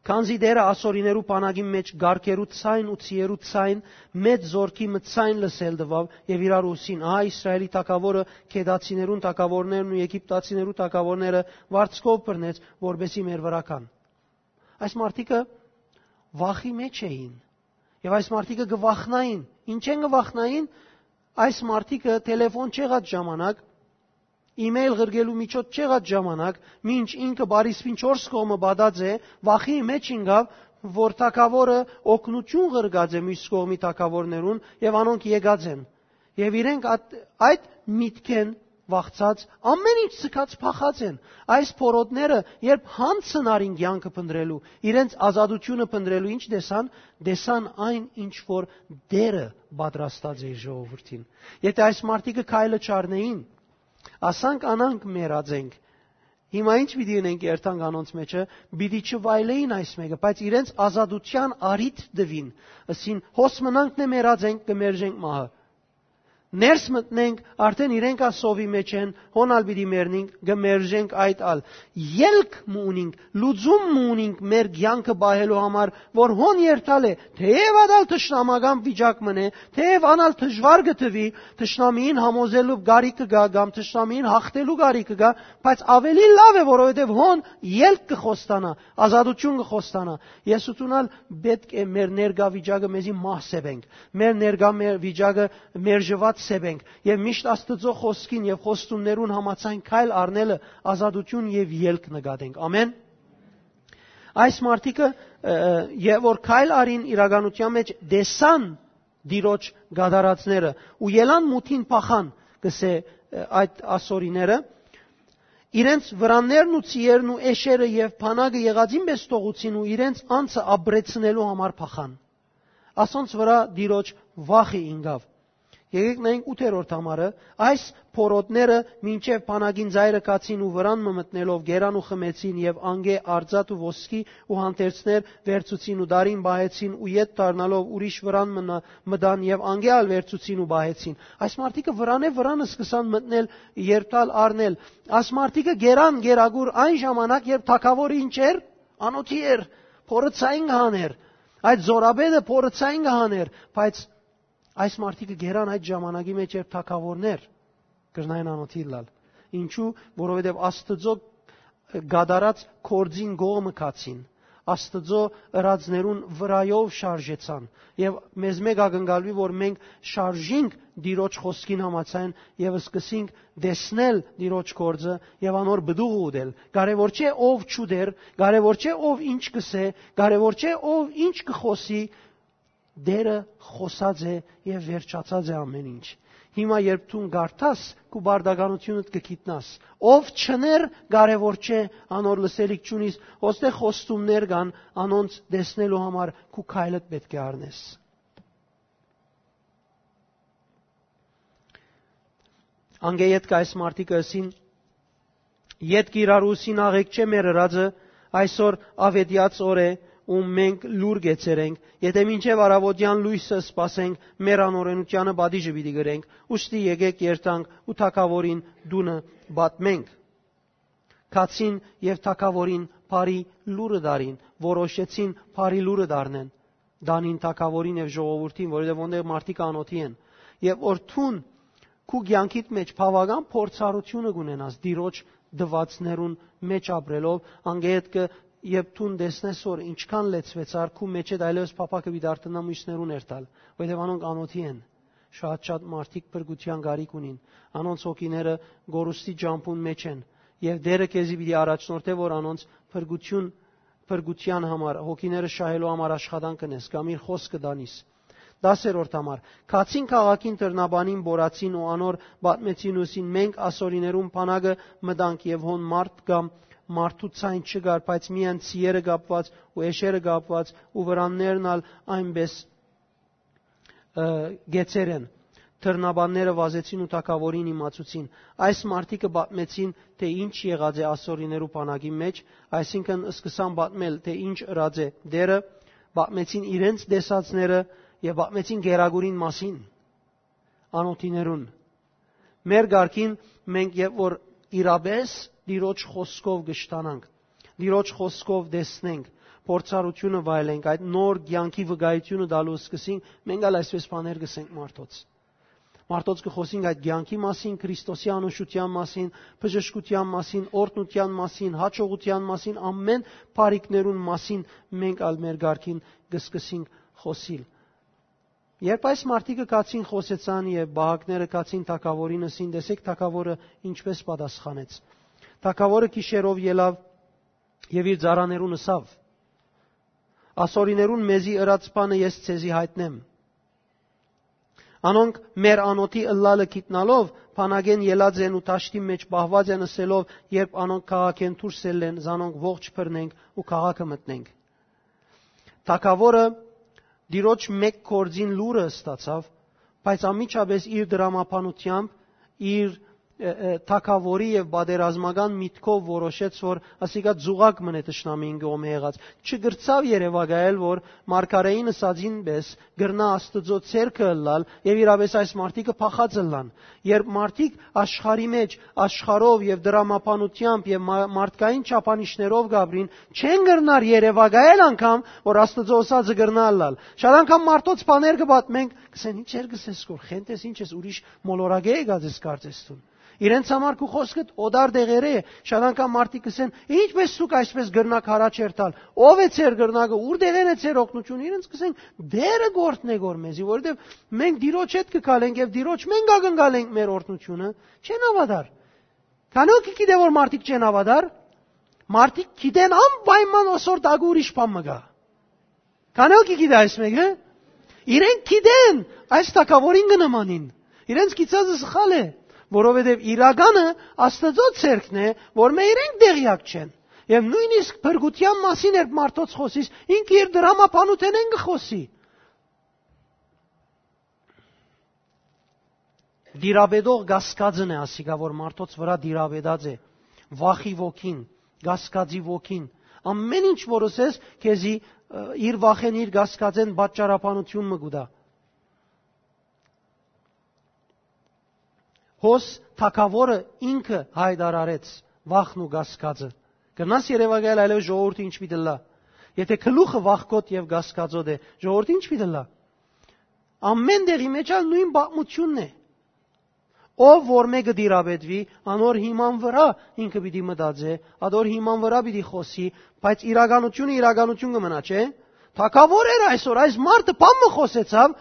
քանզի Տէրը ասորիներու բանակին մէջ կառքերու ցայն ու ձիերու ցայն, մեծ զօրքի մը ցայն լսել տուաւ եւ իրար ըսին. «Ահա Իսրայէլի թագաւորը Քեդացիներուն թագաւորներն ու Եգիպտացիներու թագաւորները վարձքով բռնեց, որպէսզի մեր վրայ գան»։ Այս մարդիկը վախի մէջ էին եւ այս մարդիկը կը վախնային։ Ինչէն կը վախնային։ Այս մարդիկը թելեֆոն չեղած ժամանակ, email ղրկելու միջոց չեղած ժամանակ, մինչ ինքը պարիսպին չորս կողմը պատած է, վախի մէջ ինկաւ, որ թագաւորը օգնութիւն ղրկած է միւս կողմի թագաւորներուն եւ անոնք եկած են։ Եւ իրենք այդ, այդ միտքէն վախցած, ամեն ինչ ձգած փախած են։ Այս փորոտները, երբ յանցն առին կեանքը փնտռելու, իրենց ազատութիւնը փնտռելու, ինչ տեսան, տեսան այն, ինչ որ Տէրը պատրաստած է իր ժողովուրդին։ Եթէ այս մարդիկը քայլը չառնէին, ասանք անանք մեռած ենք, հիմա ինչ պիտի ընենք երթանք անոնց մեջը, պիտի չվայլեին այս մէկը, բայց իրենց ազատութեան առիթ տուին, ըսին, հոս մնանք նե մեռած ենք, կը մերժենք մահը։ Ներս մտնենք, արդեն իրենք ա սովի մեջ են, հոն ալ պիտի մեռնենք, կը մերժենք այդ ալ։ Ելք մը ունինք, լուծում մը ունինք մեր կեանքը պահելու համար, որ հոն երթալ է, թեև ատալ թշնամական վիճակ մն է, թեև անալ դժուար կը թվի, թշնամիին համոզելու կարիքը կա կամ թշնամիին հաղթելու կարիքը կա, բայց ավելի լաւ է, որովհետեւ հոն ելք կը խոստանայ, ազատութիւն կը խոստանայ։ Ես ութունալ պէտք է մեր ներկայ վիճակը մեզի մահսեպենք, մեր ներկայ մեր վիճակը մերժուած սեպենք եւ միշտ Աստուծոյ խօսքին եւ խոստումներուն համաձայն քայլ առնելը ազատութիւն եւ ելք նկատենք։ Ամեն։ Այս մարդիկը, ը, ը, եւ որ քայլ արին իրականության մեջ, տեսան Տիրոջ գադարածները ու ելան մութին փախան, կսե, ը, այդ ասորիները, իրենց վրաններն ու ծիերն ու էշերը եւ բանակը եղածին պես թողուցին ու իրենց անձը ապրեցնելու համար փախան։ Ասոնց վրա Տիրոջ վախը ինկաւ։ Եկեք նայենք ութերորդ համարը։ Այս փորոտները մինչև բանակին ծայրը գացին ու վրան մը մտնելով գերան ու խմեցին, և անկէ արծաթ ու ոսկի ու հանդերձներ վերցուցին ու դարին պահեցին ու ետ դառնալով ուրիշ վրան մնա-, մտան և անկէ ալ վերցուցին ու պահեցին։ Այս մարդիկը վրանէ վրան սկսան մտնել, երթալ, առնել։ Այս մարդիկը գերան գերագուր այն ժամանակ, երբ թագավորը ինչ էր, անոթի էր, փորը ցայն կհաներ, այդ զորապետը փորը ցայն կհաներ, բայց այս մարդիկը գերան այդ ժամանակի մեջ, երբ թագավորներ կրնային անոթի լալ։ Ինչու՞, որովհետև Աստծո կատարած գործին կողմը գացին, Աստծո ըրածներուն վրայով շարժեցան, և մեզ մեկ ակնկալվի, որ մենք շարժինք Տիրոջ խոսքին համաձայն և սկսենք տեսնել Տիրոջ գործը և անոր պտուղը ուտել։ Կարևոր չէ ով չուտեր, կարևոր չէ ով ինչ կսե, կարևոր չէ ով ինչ կխոսի, Տէրը խօսած է եւ վերջացած է ամէն ինչ։ Հիմա երբ դուն կարդաս, քու բարդականութիւնդ կը գիտնաս։ Ով չներ, կարեւոր չէ, անոր լսելիք չունիս, ոստե խոստումներ կան, անոնց տեսնելու համար քու քայլդ պէտք է առնես։ Անկէ ետք այս մարդիկը ըսին. «Ետք իրարու սին աղէկ չէ մեր ըրածը, այսօր աւետեաց օր է ու մենք լուր կեցեր ենք, եթէ մինչեւ առավոտեան լոյսը սպասենք, մեր անօրենութեանը պատիժը պիտի գրենք, ուստի եկեք երթանք ու թագաւորին տունը պատմենք»։ Գացին եւ թագաւորին բարի լուրը դարին, որոշեցին բարի լուրը դառնեն, դանին թագաւորին եւ ժողովուրդին, որովհետեւ ոնտեղ մարդիկ անօթի են։ Եւ որ դուն քու կեանքիդ մեջ բաւական փորձառութիւնը կունենաս Տիրոջ տուածներուն մեջ ապրելով, անգետ կը, երբ դուն տեսնես, որ ինչքան լեցուեցար, քու մեջ այդ այլևս փափակը պիտի դարձնա մյուսներուն երթալ, որովհետեւ անոնք անօթի են։ Շատ-շատ մարդիկ փրկության կարիք ունին, անոնց հոգիները գորուստի ճամբուն մեջ են, եւ Տէրը քեզի պիտի առաջնորդէ, որ անոնց փրկություն, փրկության համար, հոգիները շահելու համար աշխատանք կնես, կամ իր խօսքը տանիս։ Դասերորդ համար. «Գացին քաղաքին դռնաբանին, բորացին ու անոր պատմեցին ու ըսին. մենք ասորիներուն բանակը մտանք եւ հոն մարդ կամ մարդու ցայն չկար, բայց միայն ցիերը կապուած ու էշերը կապուած ու վրաններն ալ այնպէս, ը, գեցեր են։ Դռնաբանները վազեցին ու թագաւորին իմացուցին»։ Այս մարդիկը պատմեցին, թէ ինչ եղած է ասորիներու բանակի մեջ, այսինքն սկսան պատմել, թէ ինչ ըրած է Տէրը, պատմեցին իրենց տեսածները եւ պատմեցին գերագուրին մասին անօթիներուն։ Մեր կարգին մենք երբ որ իրապէս Տիրոջ խօսքով կշտանանք, Տիրոջ խօսքով տեսնենք, փորձառութիւնը վայելենք, այդ նոր կեանքի վկայութիւնը տալու սկսենք, մենք ալ այսպէս բաներ կսենք մարդոց։ Մարդոց կը խօսենք այդ կեանքի մասին, Քրիստոսի անուշութեան մասին, բժշկութեան մասին, օրհնութեան մասին, հաջողութեան մասին, ամէն բարիքներուն մասին մենք ալ մեր կարգին կը սկսենք խօսիլ։ Երբ այս մարդիկը գացին, խօսեցան եւ պահակները գացին թագաւորին, ըսին, տեսեք թագաւորը ինչպէս պատասխանեց։ Թագաւորը գիշերով ելաւ եւ իր ծառաներուն ըսաւ. «Ասորիներուն մեզի ըրած բանը ես ձեզի յայտնեմ։ Անոնք մեր անօթի ըլլալը գիտնալով, բանակէն ելած են ու դաշտի մեջ պահուած են, ըսելով, երբ անոնք քաղաքէն դուրս ելլեն, զանոնք ողջ բռնենք ու քաղաքը մտնենք»։ Թագաւորը Տիրոջ մէկ գործին լուրը ստացաւ, բայց անմիջապէս իր դրամաբանութեամբ, իր, ը, ը, թագաւորի եւ պատերազմական միտքով որոշեց, որ ասիկա ձուղակ մնէ թշնամին կողմէ եղած։ Չկրցաւ երեւակայել, որ մարգարէին ըսածին պէս կրնայ Աստուծոյ ցերկը ըլլալ եւ իրապէս այս մարդիկը փախած ըլլան։ Երբ մարդիկ աշխարհի մեջ, աշխարհով եւ դրամաբանութեամբ եւ մա-, մարդկային չափանիշներով կապրին, չեն կրնար երեւակայել անգամ, որ Աստուծոյ ըսածը կրնայ ըլլալ։ Շատ անգամ մարդոց բաներ կը պատմենք, կսեն, «Ի՞նչ էր կսես, որ խենթ ես, ի՞նչ ես, ուրիշ մոլորակէ եկած ես, կարծես դուն։ Իրենց համար քու խօսքդ օտար տեղերէ է»։ Շատ անգամ մարդիկ կսեն, «Ինչպէս դուք այսպէս կրնաք առաջ երթալ, ո՞վ է ձեր կրնակը, ո՞ւր տեղէն է ձեր օգնությունը»։ Իրենց կսեն, «Տէրը գործնէ գոր մեզի, որովհետեւ մենք Տիրոջ հետ կը գալենք եւ Տիրոջ մենք ակնկալենք մեր օրհնությունը»։ Չեն հաւատար։ Քանի՞ հոգի գիտէ, որ մարդիկ չեն հաւատար։ Մարդիկ գիտեն անպայման, ոսոր տակը ուրիշ բան մը կայ։ Քանի՞ հոգի գիտէ այս մեկը։ Իրենք գիտեն այս թագաւորին կը նմանին։ Իրենց գիծածը սխալ է, որովհետեւ իրականը Աստուծոյ ցերկն է, որ մէ իրենք տեղյակ չեն։ Եւ նոյնիսկ փրկութեան մասին երբ մարդոց խօսիս, ինքը իր դրամաբանութենէն կը խօսի։ Տիրապետող կասկածն է ասիկա, որ մարդոց վրա տիրապետած է, վախի ոգին, կասկածի ոգին։ Ամէն ինչ որ ըսես, քեզի, ը, իր վախեն, իր կասկածեն պատճառաբանություն մը կու տայ։ Հոս թագաւորը ինքը յայտարարեց վախն ու կասկածը։ Կրնաս երեւակայել այլեւս ժողովուրդը ինչ պիտի ըլլայ։ Եթե գլուխը վախկոտ եւ կասկածոտ է, ժողովուրդը ինչ պիտի ըլլայ։ Ամէն տեղի մեջ ալ նոյն պատմութիւնն է։ Ով որ մէկը տիրապետուի, անոր հիման վրայ ինքը պիտի մտածէ, ադոր հիման վրայ պիտի խօսի, բայց իրականությունը իրականություն կը մնայ, չէ՞։ Թագաւոր էր այսօր, այս մարդը բան մը խօսեցաւ,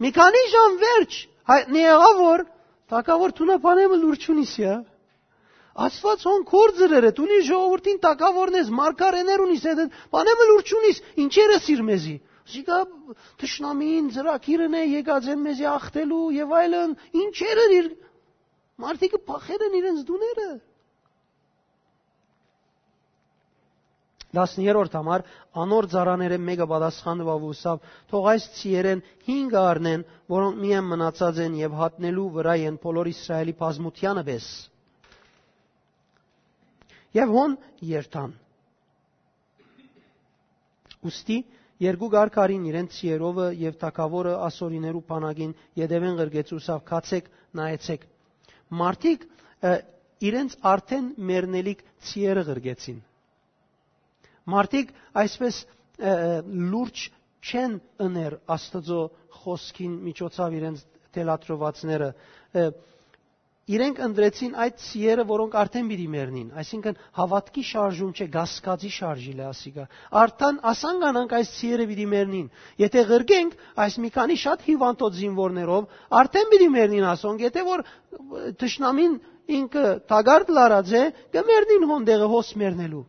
մի քանի ժամ վերջ, հայտնի եղաւ, որ թագաւոր դունը բանե մը լուր չունիս, յա։ Աստուած հոն քոր ձրեր է, դուն իր ժողովուրդին թագաւորն ես, մարգարէներ ունիս, հետ, բանե մը լուր չունիս, ինչեր ես իր մեզի։ Զիկա թշնամին ծրագիրն է, եկած են մեզի ախտելու եւ այլն, ինչեր էր իր, մարդիկը փախեր են իրենց տուները։ Տասներորդ համար, անոր ծառաներէն մէկը պատասխան տուաւ ու ըսաւ. «Թող այս ցիերէն հինգը առնեն, որոնք միայն մնացած են, եւ հատնելու վրայ են բոլոր Իսրայէլի բազմութեանը պէս»։ Եւ հոն երթան։ Ուստի երկու կարգ առին իրենց ցիերովը, եւ թագաւորը Ասորիներու բանակին ետեւէն ղրկեց ու ըսաւ. «Գացէք, նայեցէք»։ Մարդիկ, ը, իրենց արդէն մեռնելիք ցիերը ղրկեցին։ Մարդիկ այսպես, ը, ը, լուրջ չեն ըներ Աստուծոյ խօսքին միջոցաւ իրենց թելադրուածները։ Ը, իրենք ընտրեցին այդ ցիերը, որոնք արդեն պիտի մեռնին, այսինքն՝ հաւատքի շարժում չէ, կասկածի շարժիլ է ասիկա։ Արդեն ասան կանանք այս ցիերը պիտի մեռնին։ Եթե ղրկենք այս մի քանի շատ հիւանդոց զինուորներով, արդեն պիտի մեռնին ասոնք, եթե որ, ը, թշնամին ինքը թակարդ լարած է, կը մեռնին հոն տեղը հոս մեռնելու։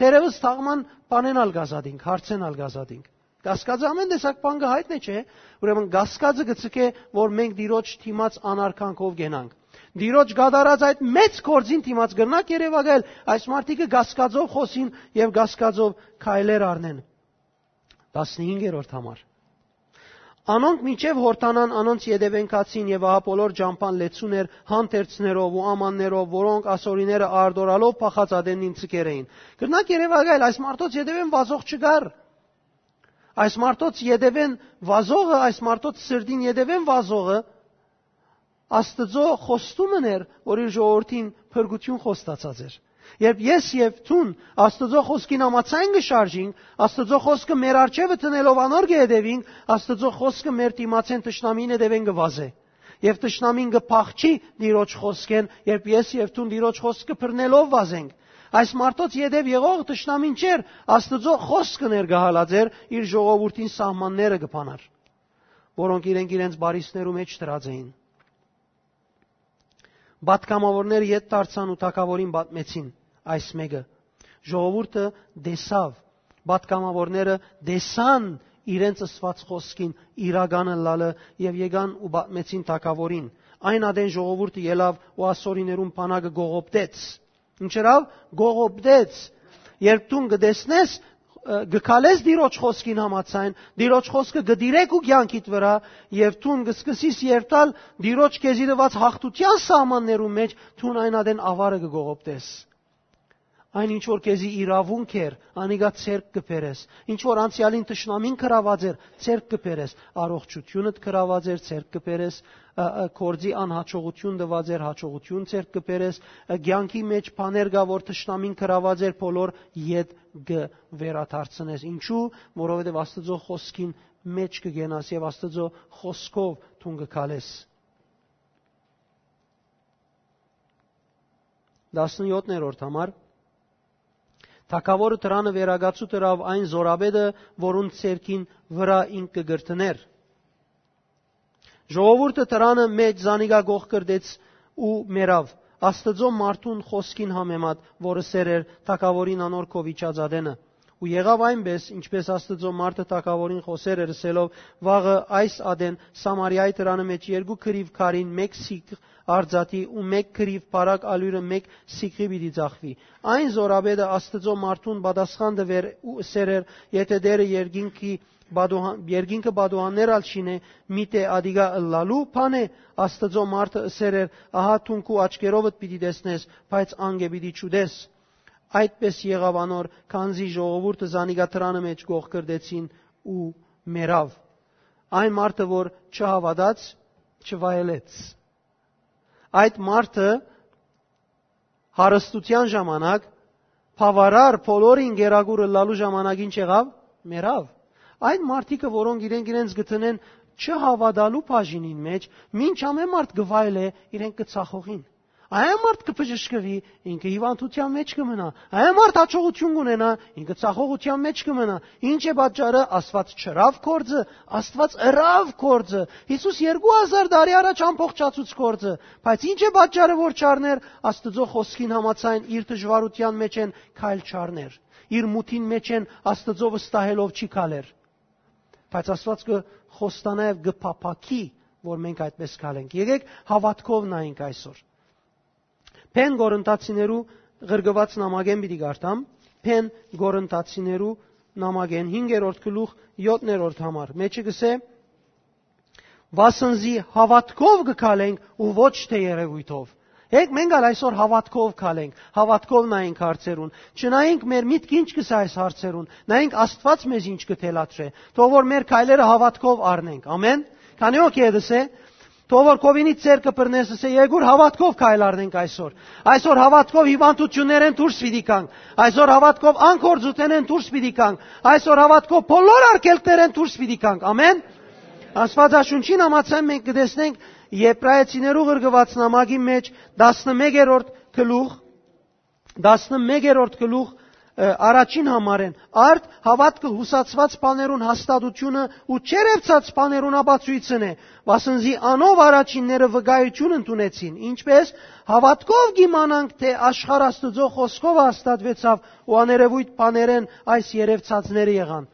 Թերեւս թաղման բանեն ալ կ'ազատինք, հարցեն ալ կ'ազատինք։ Կասկածը ամեն տեսակ բան կը հայտնէ, չէ՞։ Ուրեմն կասկածը կը ցկէ, որ մենք Տիրոջ դիմաց անարգանքով կենանք։ Տիրոջ կատարած այդ մեծ գործին դիմաց կրնանք երեւակայել, այս մարդիկը կասկածով խօսին եւ կասկածով քայլեր առնեն։ Տասնհինգերորդ համար։ Անոնք մինչեւ Յորդանան անոնց ետեւէն գացին, եւ ահա բոլոր ճամբան լեցուն էր հանդերձներով ու ամաններով, որոնք ասորիները արտորալով փախած ատենին ցկեր էին։ Կրնանք երեւակայել, այս մարդոց ետեւէն վազող չկար։ Այս մարդոց ետեւէն վազողը, այս մարդոց սրտին ետեւէն վազողը Աստուծոյ խոստումն էր, որ իր ժողովրդին փրկութիւն խոստացած էր։ Երբ ես եւ դուն Աստուծոյ խօսքին համաձայն կը շարժինք, Աստուծոյ խօսքը մեր առջեւը դնելով անոր կը հետեւինք, Աստուծոյ խօսքը մեր դիմացէն թշնամին հետեւէն կը վազէ։ Եւ թշնամին կը փախչի Տիրոջ խօսքէն, երբ ես եւ դուն Տիրոջ խօսքը բռնելով վազենք։ Այս մարդոց ետեւ եղող թշնամին չէր, Աստուծոյ խօսքը ներկայ յալած էր, իր ժողովուրդին սահմանները կը բանար, որոնք իրենք իրենց բարիսներու մէջ դրած էին։ Պատգամաւորները ետ դարձան ու թագաւորին պատմեցին այս մէկը։ Ժողովուրդը տեսաւ, պատգամաւորները տեսան իրենց ըսուած խօսքին իրական ըլլալը եւ եկան ու պատմեցին թագաւորին։ Այն ատեն ժողովուրդը ելաւ ու ասորիներուն բանակը գողոպտեց։ Ինչ ըրաւ, գողոպտեց։ Երբ դուն կը տեսնես, ը, կը քալես Տիրոջ խօսքին համաձայն, Տիրոջ խօսքը կը դիրեք ու կեանքիդ վրայ, եւ դուն կը սկսես երթալ Տիրոջ քեզի տուած հաղթութեան սահմաններուն մէջ, դուն այն ատեն աւարը կը գողոպտես։ Այն ինչ որ քեզի իրաւունք էր, անիկա ձեռք կը բերես։ Ինչ որ անցեալին թշնամին գրաւած էր, ձեռք կը բերես։ Առողջութիւնդ գրաւած էր, ձեռք կը բերես, ը, ը, գործի անհաջողութիւն տուած էր, հաջողութիւն ձեռք կը բերես, ը, կեանքի մէջ բաներ կայ, որ թշնամին գրաւած էր, բոլոր ետ կը վերադարձնես։ Ինչու՞, որովհետեւ Աստուծոյ խօսքին մէջ կը կենաս եւ Աստուծոյ խօսքով դուն կը քալես։ Տասնյոթերորդ համար։ Թագաւորը դրանը վերակացուտ ըրաւ այն զորապետը, որուն ձեռքին վրայ ինք կը կրթներ։ Ժողովուրդը դրանը մէջ զանիկա գողկրտեց ու մեռաւ, Աստուծոյ մարդուն խօսքին համեմատ, որ ըսեր էր թագաւորին անոր քով իջած ատենը։ Ու եղաւ այնպէս, ինչպէս Աստուծոյ մարդը թագաւորին խօսեր էր, ըսելով. «Վաղը այս ատեն Սամարիայի դրանը մէջ երկու կռիւ քարին մէկ սիգ արձատի ու մէկ կռիւ բարակ ալիւրը մէկ սիգի պիտի ձախուի»։ Այն զորապետը Աստուծոյ մարդուն պատասխան տուեր ու ըսեր էր. «Եթէ Տէրը երկինքի պատուհան-, երկինքը պատուհաններ ալ չինէ, միթէ ատիկա ըլլալու բան է»։ Աստուծոյ մարդը ըսեր էր. «Ահա դուն քու աչքերովդ պիտի տեսնես, բայց անկէ պիտի չուտես»։ Այդպէս եղաւ անոր, քանզի ժողովուրդը զանիկա դրանը մէջ գողկրտեցին ու մեռաւ։ Այն մարդը, որ չհաւատաց, չվայելեց։ Այդ մարդը հարստութեան ժամանակ, բաւարար բոլորին գերագուր ըլլալու ժամանակ ինչ եղաւ։ Մեռաւ։ Այդ մարդիկը, որոնք իրենք իրենց գտնեն չհաւատալու բաժինին մէջ, մինչ ամեն մարդ կը վայելէ, իրենք կը ցախողին։ Այն մարդ կը բժշկուի, ինքը հիւանդութեան մէջ կը մնայ։ Այն մարդ հաջողութիւն կունենայ, ինքը ցախողութեան մէջ կը մնայ։ Ինչ է պատճառը, Աստուած չըրաւ գործը, Աստուած ըրաւ գործը։ Յիսուս երկու հազար տարի առաջ ամբողջացուց գործը, բայց ինչ է պատճառը, որ չառներ, Աստուծոյ խօսքին համաձայն իր դժուարութեան մէջ են քայլ չառներ։ Իր մութին մէջ են Աստուծոյ վստահելով չի քալեր։ Բայց Աստուած կը խոստանայ եւ կը փափաքի, որ մենք այդպես քալենք։ Եկեք հաւատքով նայենք այսօր։ Բեն Կորինթացիներու ղրկուած նամակէն պիտի կարդամ, Բեն Կորինթացիներու նամակէն հինգերորդ գլուխ, յոթերորդ համար։ Մեջը կսէ. «Վասն զի հաւատքով կը քալենք ու ոչ թէ երեւոյթով»։ Եկեք մենք ալ այսօր հաւատքով քալենք, հաւատքով նայենք հարցերուն։ Չնայենք մեր միտքը ինչ կ'ըսէ այս հարցերուն, նայենք Աստուած մեզ ինչ կը թելադրէ։ Թող որ մեր քայլերը հաւատքով առնենք։ Ամեն։ Քանի՞ հոգի է դսե։ Թող որ քովինից ձեռքը բռնես, ըսէ, «Երկուր հաւատքով քայլ առնենք այսօր»։ Այսօր հաւատքով հիվանդություններէն դուրս պիտի գանք։ Այսօր հաւատքով անգործութենէն դուրս պիտի գանք։ Այսօր հաւատքով բոլոր արգելքներէն դուրս պիտի գանք։ Ամեն։ Աստուածաշունչին համաձայն մենք կը տեսնենք Եբրայեցիներու ղրկուած նամակի մէջ տասնմեկերորդ գլուխ, տասնմեկերորդ գլուխ, ը, առաջին համարէն. «Արդ հաւատքը յուսացուած բաներուն հաստատութիւնը ու չերեւցած բաներուն ապացոյցն է, վասն զի անով առաջինները վկայութիւն ընդունեցին»։ Ինչպէս, հաւատքով կ'իմանանք թէ աշխարհ Աստուծոյ խօսքովը հաստատուեցաւ ու աներեւոյթ բաներէն այս երեւցածները եղան։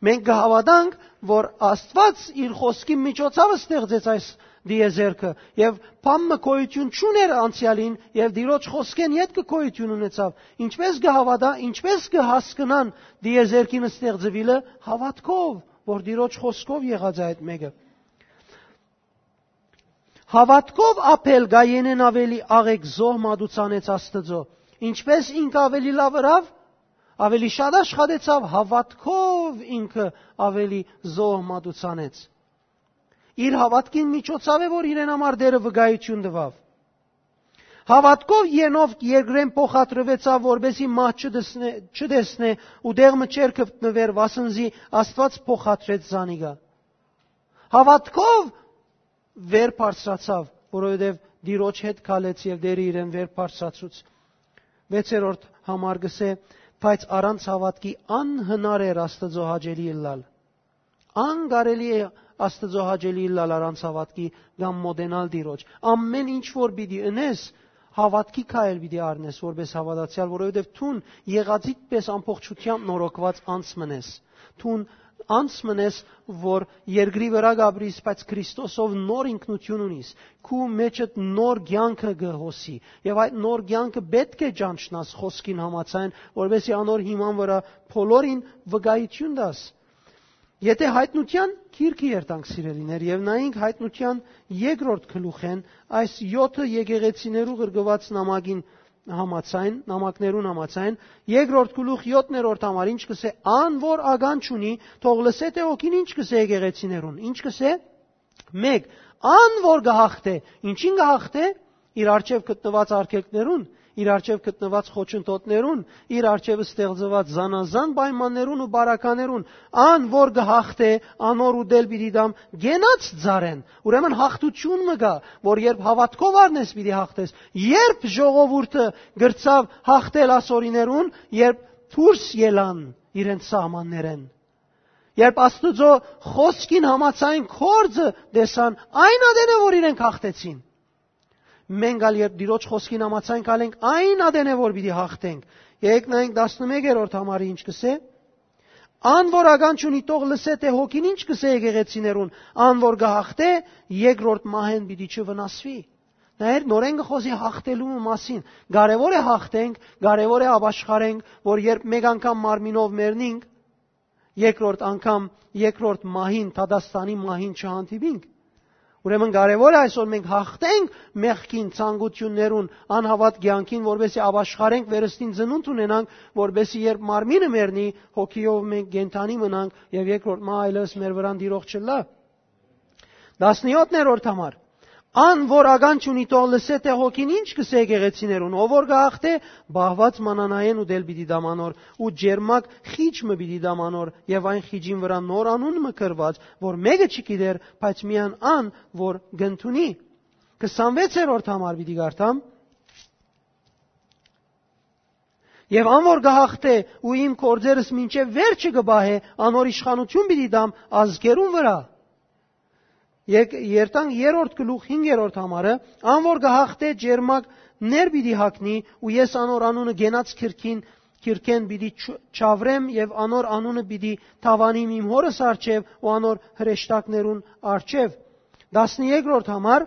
Մենք կը հաւատանք, որ Աստուած իր խօսքի միջոցաւը ստեղծեց այս դիեզերքը եւ բան մը գոյութիւն չունէր անցեալին եւ Տիրոջ խօսքէն ետքը գոյութիւն ունեցաւ։ Ինչպէս կը հաւատա, ինչպէս կը հասկնան դիեզերքին ստեղծուիլը? Հաւատքով, որ Տիրոջ խօսքով եղած է այդ մէկը։ Հաւատքով Աբէլ Կայենէն աւելի աղէկ զոհ մատուցանեց Աստուծոյ։ Ինչպէս ինքը աւելի լաւ ըրաւ, աւելի շատ աշխատեցաւ, հաւատքով ինքը աւելի զոհ մատուցանեց։ Իր հաւատքին միջոցաւ է, որ իրեն համար Տէրը վկայութիւն տուաւ։ Հաւատքով Ենովք երկրէն փոխադրուեցաւ, որպէսզի մահ չտեսնէ, չտեսնէ ու տեղ մը չէր գտնուեր, վասն զի Աստուած փոխադրեց զանիկա։ Հաւատքով վեր բարձրացաւ, որովհետեւ Տիրոջ հետ քալեց եւ Տէրը իրեն վեր բարձրացուց։ Վեցերորդ համար կսէ, բայց առանց հաւատքի անհնար էր Աստուծոյ հաճելի ըլլալ։ Անկարելի է Աստուծոյ հաճելի ըլլալ առանց հաւատքի կամ մոտենալ Տիրոջ։ Ամեն ինչ որ պիտի ընես, հաւատքի քայլ պիտի առնես որպես հաւատացեալ, որովհետեւ դուն եղածիդ պէս ամբողջութեամբ նորոգուած անձ մըն ես։ Դուն անձ մըն ես, որ երկրի վրայ կ'ապրիս, բայց Քրիստոսով նոր ինքնութիւն ունիս, քու մեջդ նոր կեանքը կը հոսի, եւ այդ նոր կեանքը պէտք է ճանչնաս խօսքին համաձայն, որպէսզի անոր հիման վրայ բոլորին վկայութիւն տաս։ Եթէ Յայտնութեան գիրքը երթանք, սիրելիներ, եւ նայենք Յայտնութեան երկրորդ գլուխէն, այս յոթը եկեղեցիներու ղրկուած նամակին համաձայն, նամակներուն համաձայն, երկրորդ գլուխ, յոթերորդ համար, ինչ կսէ, ան որ ականջ ունի, թող լսէ թէ հոգին ինչ կսէ եկեղեցիներուն, ինչ կսէ, մեկ, ան որ կը հաղթէ, ինչին կը հաղթէ, իր առջեւ գտնուած արգելքներուն, իր առջեւ գտնուած խոչընդոտներուն, իր առջեւ ստեղծուած զանազան պայմաններուն ու բարականերուն, ան որ կը հաղթէ, անոր ուտել պիտի տամ կենաց ծառէն։ Ուրեմն հաղթութիւն մը կայ, որ երբ հաւատքով առնես, պիտի հաղթես։ Երբ ժողովուրդը գրցաւ հաղթել ասորիներուն, երբ դուրս ելան իրենց սահմաններէն, երբ Աստուծոյ խօսքին համաձայն գործը տեսան, այն ատեն է, որ իրենք հաղթեցին։ Մենք ալ երբ Տիրոջ խօսքին համաձայն քալենք, այն ատեն է, որ պիտի հաղթենք։ Եկեք նայենք տասնմեկերորդ համարը ինչ կսէ. «Ան որ ականջ ունի, թող լսէ թէ հոգին ինչ կսէ եկեղեցիներուն, ան որ կը հաղթէ, երկրորդ մահէն պիտի չվնասուի»։ Նայեր, նորէն կը խօսի հաղթելու մասին։ Կարեւոր է հաղթենք, կարեւոր է ապաշխարենք, որ երբ մեկ անգամ մարմինով մեռնինք, երկրորդ անգամ, երկրորդ մահին, դատաստանի մահին չհանդիպինք։ Ուրեմն կարեւոր է այսօր մենք հաղթենք մեղքին, ցանկութիւններուն, անհաւատ կեանքին, որպեսզի ապաշխարենք, վերստին ծնունդ ունենանք, որպեսզի երբ մարմինը մեռնի, հոգիով մենք կենդանի մնանք եւ երկրորդ մահ այլեւս մեր վրան դիրող չլա։ Տասնյոթերորդ համար. «Ան որ ականջ ունի, թող լսէ թէ հոգին ինչ կսէ եկեղեցիներուն, ով որ կը հաղթէ, բահուած մանանայէն ուտել պիտի տամ անոր ու ջերմակ խիճ մը պիտի տամ անոր եւ այն խիճին վրայ նոր անուն մը գրուած, որ մէկը չգիտեր, բայց միայն ան, որ կ'ընդունի»։ Քսանվեցերորդ համար պիտի կարդամ. «Եւ ան որ կը հաղթէ ու իմ գործերս մինչեւ վերջը կը պահէ, անոր իշխանութիւն պիտի տամ ազգերուն վրայ»։ Եկ-, երթանք երրորդ գլուխ, հինգերորդ համարը. «Ան որ կը հաղթէ, ջերմակ ներ պիտի հագնի ու ես անոր անունը կենաց քրքին կիրքէն պիտի չավրեմ եւ անոր անունը պիտի թաւանիմ իմ հօրս առջեւ ու անոր հրեշտակներուն առջեւ։ Տասներկրորդ համար,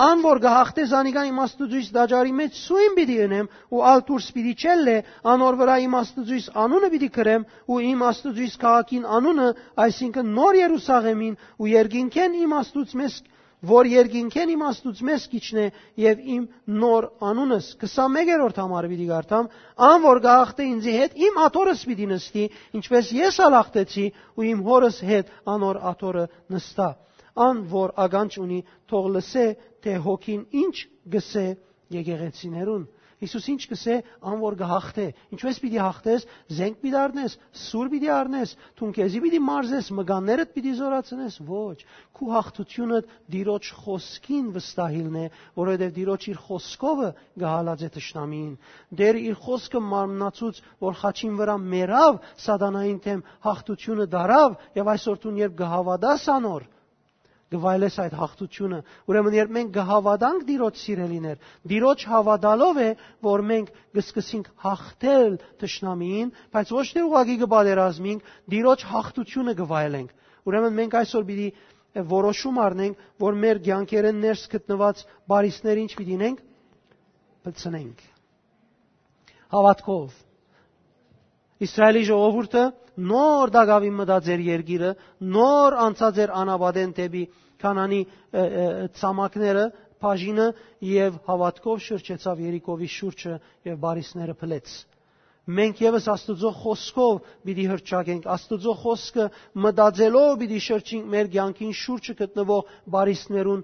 ան որ կը հաղթէ, զանիկա իմ Աստուծոյս տաճարի մէջ սոյն պիտի ընեմ ու ալ դուրս պիտի չելլէ, անոր վրայ իմ Աստուծոյս անունը պիտի գրեմ ու իմ Աստուծոյս քաղաքին անունը, այսինքն նոր Երուսաղեմին ու երկինքէն իմ Աստուծմես, որ երկինքէն իմ Աստուծմես կ'իջնէ եւ իմ նոր անունս։ Քսանմեկերորդ համար պիտի կարդամ. «Ան որ կը հաղթէ ինծի հետ, իմ աթոռս պիտի նստի, ինչպէս ես ալ հաղթեցի ու իմ հօրս հետ անոր աթոռը նստայ»։ Ան որ ականջ ունի, թող լսէ, թէ հոգին ինչ կ'ըսէ եկեղեցիներուն։ Յիսուս ինչ կ'ըսէ, ան որ կը հաղթէ։ Ինչպէս պիտի հաղթես, զենք պիտի առնես, սուր պիտի առնես, դուն քեզի պիտի մարզես, մկաններդ պիտի զորացնես, ոչ։ Քու հաղթութիւնը Տիրոջ խօսքին վստահիլն է, որովհետեւ Տիրոջ իր խօսքովը կը հալածէ թշնամիին։ Տերը իր խօսքը մարմնացուց, որ խաչին վրայ մեռաւ, սատանային դէմ հաղթութիւնը դարաւ, եւ այսօր դուն երբ կը հաւատաս անոր, կը վայելես այդ հաղթութիւնը։ Ուրեմն երբ մենք կը հաւատանք Տիրոջ, սիրելիներ, Տիրոջ հաւատալով է, որ մենք կը սկսենք հաղթել թշնամիին, բայց ոչ թե ուղղակի կը պատերազմենք, Տիրոջ հաղթութիւնը կը վայելենք։ Ուրեմն մենք այսօր պիտի որոշում առնենք, որ մեր կեանքերէն ներս գտնուած բարիսները ինչ պիտի ինենք, պլցնենք։ Հաւատքով։ Իսրայէլի ժողովուրդը նոր տակաւին մտած էր երկիրը, նոր անցած էր անապատէն դէպի Քանանի, ը, ը, ցամաքները, բաժինը, եւ հաւատքով շրջեցաւ Երիքովի շուրջը եւ բարիսները փլեց։ Մենք եւս Աստուծոյ խօսքով պիտի հրճակենք, Աստուծոյ խօսքը մտածելով պիտի շրջենք մեր կեանքին շուրջը գտնուող բարիսներուն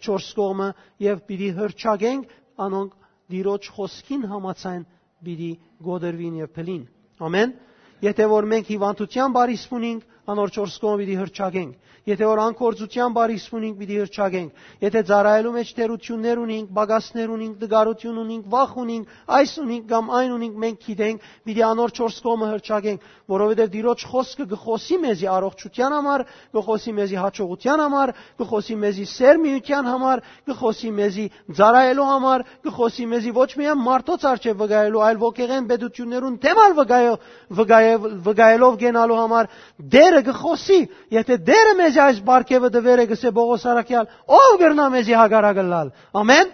չորս կողմը եւ պիտի հրճակենք անոնք Տիրոջ խօսքին համաձայն պիտի կոտրուին եւ փլին։ Ամեն։ Եթե որ մենք հիւանդութեան բարիս ունենք, անոր չորս կողմը պիտի հրճակենք։ Եթե որ անկործութեան բարիս ունենք, պիտի հրճակենք։ Եթե ծառայելու մէջ թերութիւններ ունենք, պակասներ ունենք, տկարութիւն ունենք, վախ ունենք, այս ունենք կամ այն ունենք, մենք գիտենք, պիտի անոր չորս կողմը հրճակենք, որովհետեւ Տիրոջ խօսքը կը խօսի մեզի առողջութեան համար, կը խօսի մեզի հաջողութեան համար, կը խօսի մեզի սերմիութեան համար, կը խօսի մեզի ծառայելու համար, կը խօսի մեզի ոչ միայն մարդոց առջեւ վկայելու, այլ ոգեղեն պետութիւններուն դէմ ալ վկայ-, վկայ-, վկայելով կենալու համար Տերը կը խօսի։ Եթե Տերը մեզի այս պարգեւը տուեր է, կ'ըսէ Պողոս առաքեալ, ո՞վ կրնայ մեզի հակառակ ըլլալ։ Ամեն։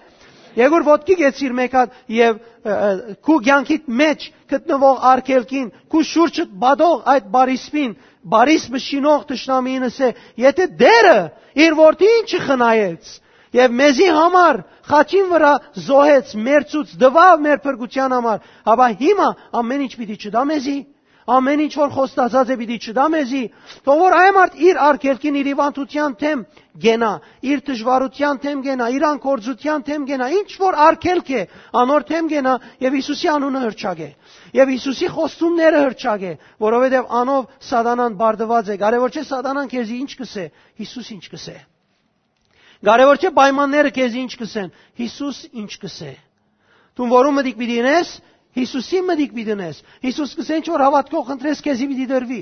Եկուր ոտքի կեցիր մէկ հատ եւ, ը, ը, քու կեանքիդ մէջ գտնուող արգելքին, քու շուրջդ պատող այդ բարիսպին, բարիս մշինող թշնամիին ըսէ, եթե Տերը իր որդին չխնայեց, եւ մեզի համար խաչին վրայ զոհեց, մերցուց, տուաւ մեր փրկութեան համար, ապա հիմա ամեն ինչ պիտի չտայ մեզի, ամեն ինչ որ խոստացած է պիտի չտայ մեզի, թող որ այն մարդ իր արգելքին, իր հիվանդութեան դէմ կենայ, իր դժուարութեան դէմ կենայ, իր անկործութեան դէմ կենայ, ինչ որ արգելք է, անոր դէմ կենայ եւ Յիսուսի անունը հրճակէ, եւ Յիսուսի խոստումները հրճակէ, որովհետեւ անով սատանան բարդուած է, կարեւոր չէ սատանան քեզի ինչ կ'ըսէ, Յիսուս ինչ կ'ըսէ։ Կարեւոր չէ պայմանները քեզի ինչ կ'ըսեն, Յիսուս ինչ կ'ըսէ։ Դուն որու մտիկ պիտի ընես, Յիսուսի մտիկ պիտի ընես։ Յիսուս կ'ըսէ, ինչ որ հաւատքով խնդրես, քեզի պիտի տրուի։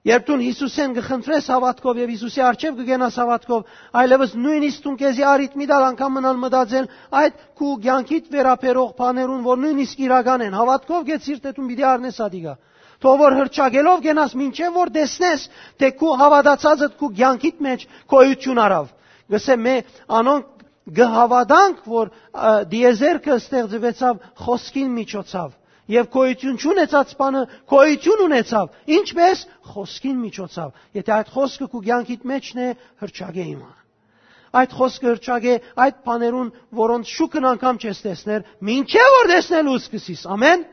Երբ դուն Յիսուսէն կը խնդրես հաւատքով եւ Յիսուսի առջեւ կը գնաս հաւատքով, այլեւս նույնիսկ դուն քեզի առիթ մի տալ անգամ մնալ մտածել այդ քու կեանքիդ վերաբերող բաներուն, որ նույնիսկ իրական են, հաւատքով կեցիր, թէ դուն պիտի առնես ատիկա։ Թող որ հրճակելով կենաս, մինչեւ որ տեսնես, թէ քու հաւատացածդ քու կեանքիդ մէջ գոյութիւն առաւ։ Կ'ըսէ մէ, անոնք կը հաւատանք, որ, ը, դիեզերքը ստեղծուեցաւ խօսքին միջոցաւ, եւ գոյութիւն չունեցած բանը գոյութիւն ունեցաւ, ինչպէս խօսքին միջոցաւ։ Եթե այդ խօսքը քու կեանքիդ մէջն է, հրճակէ հիմա։ Այդ խօսքը հրճակէ այդ բաներուն, որոնց շուքն անգամ չես տեսներ, մինչեւ որ տեսնելու սկսես։ Ամեն։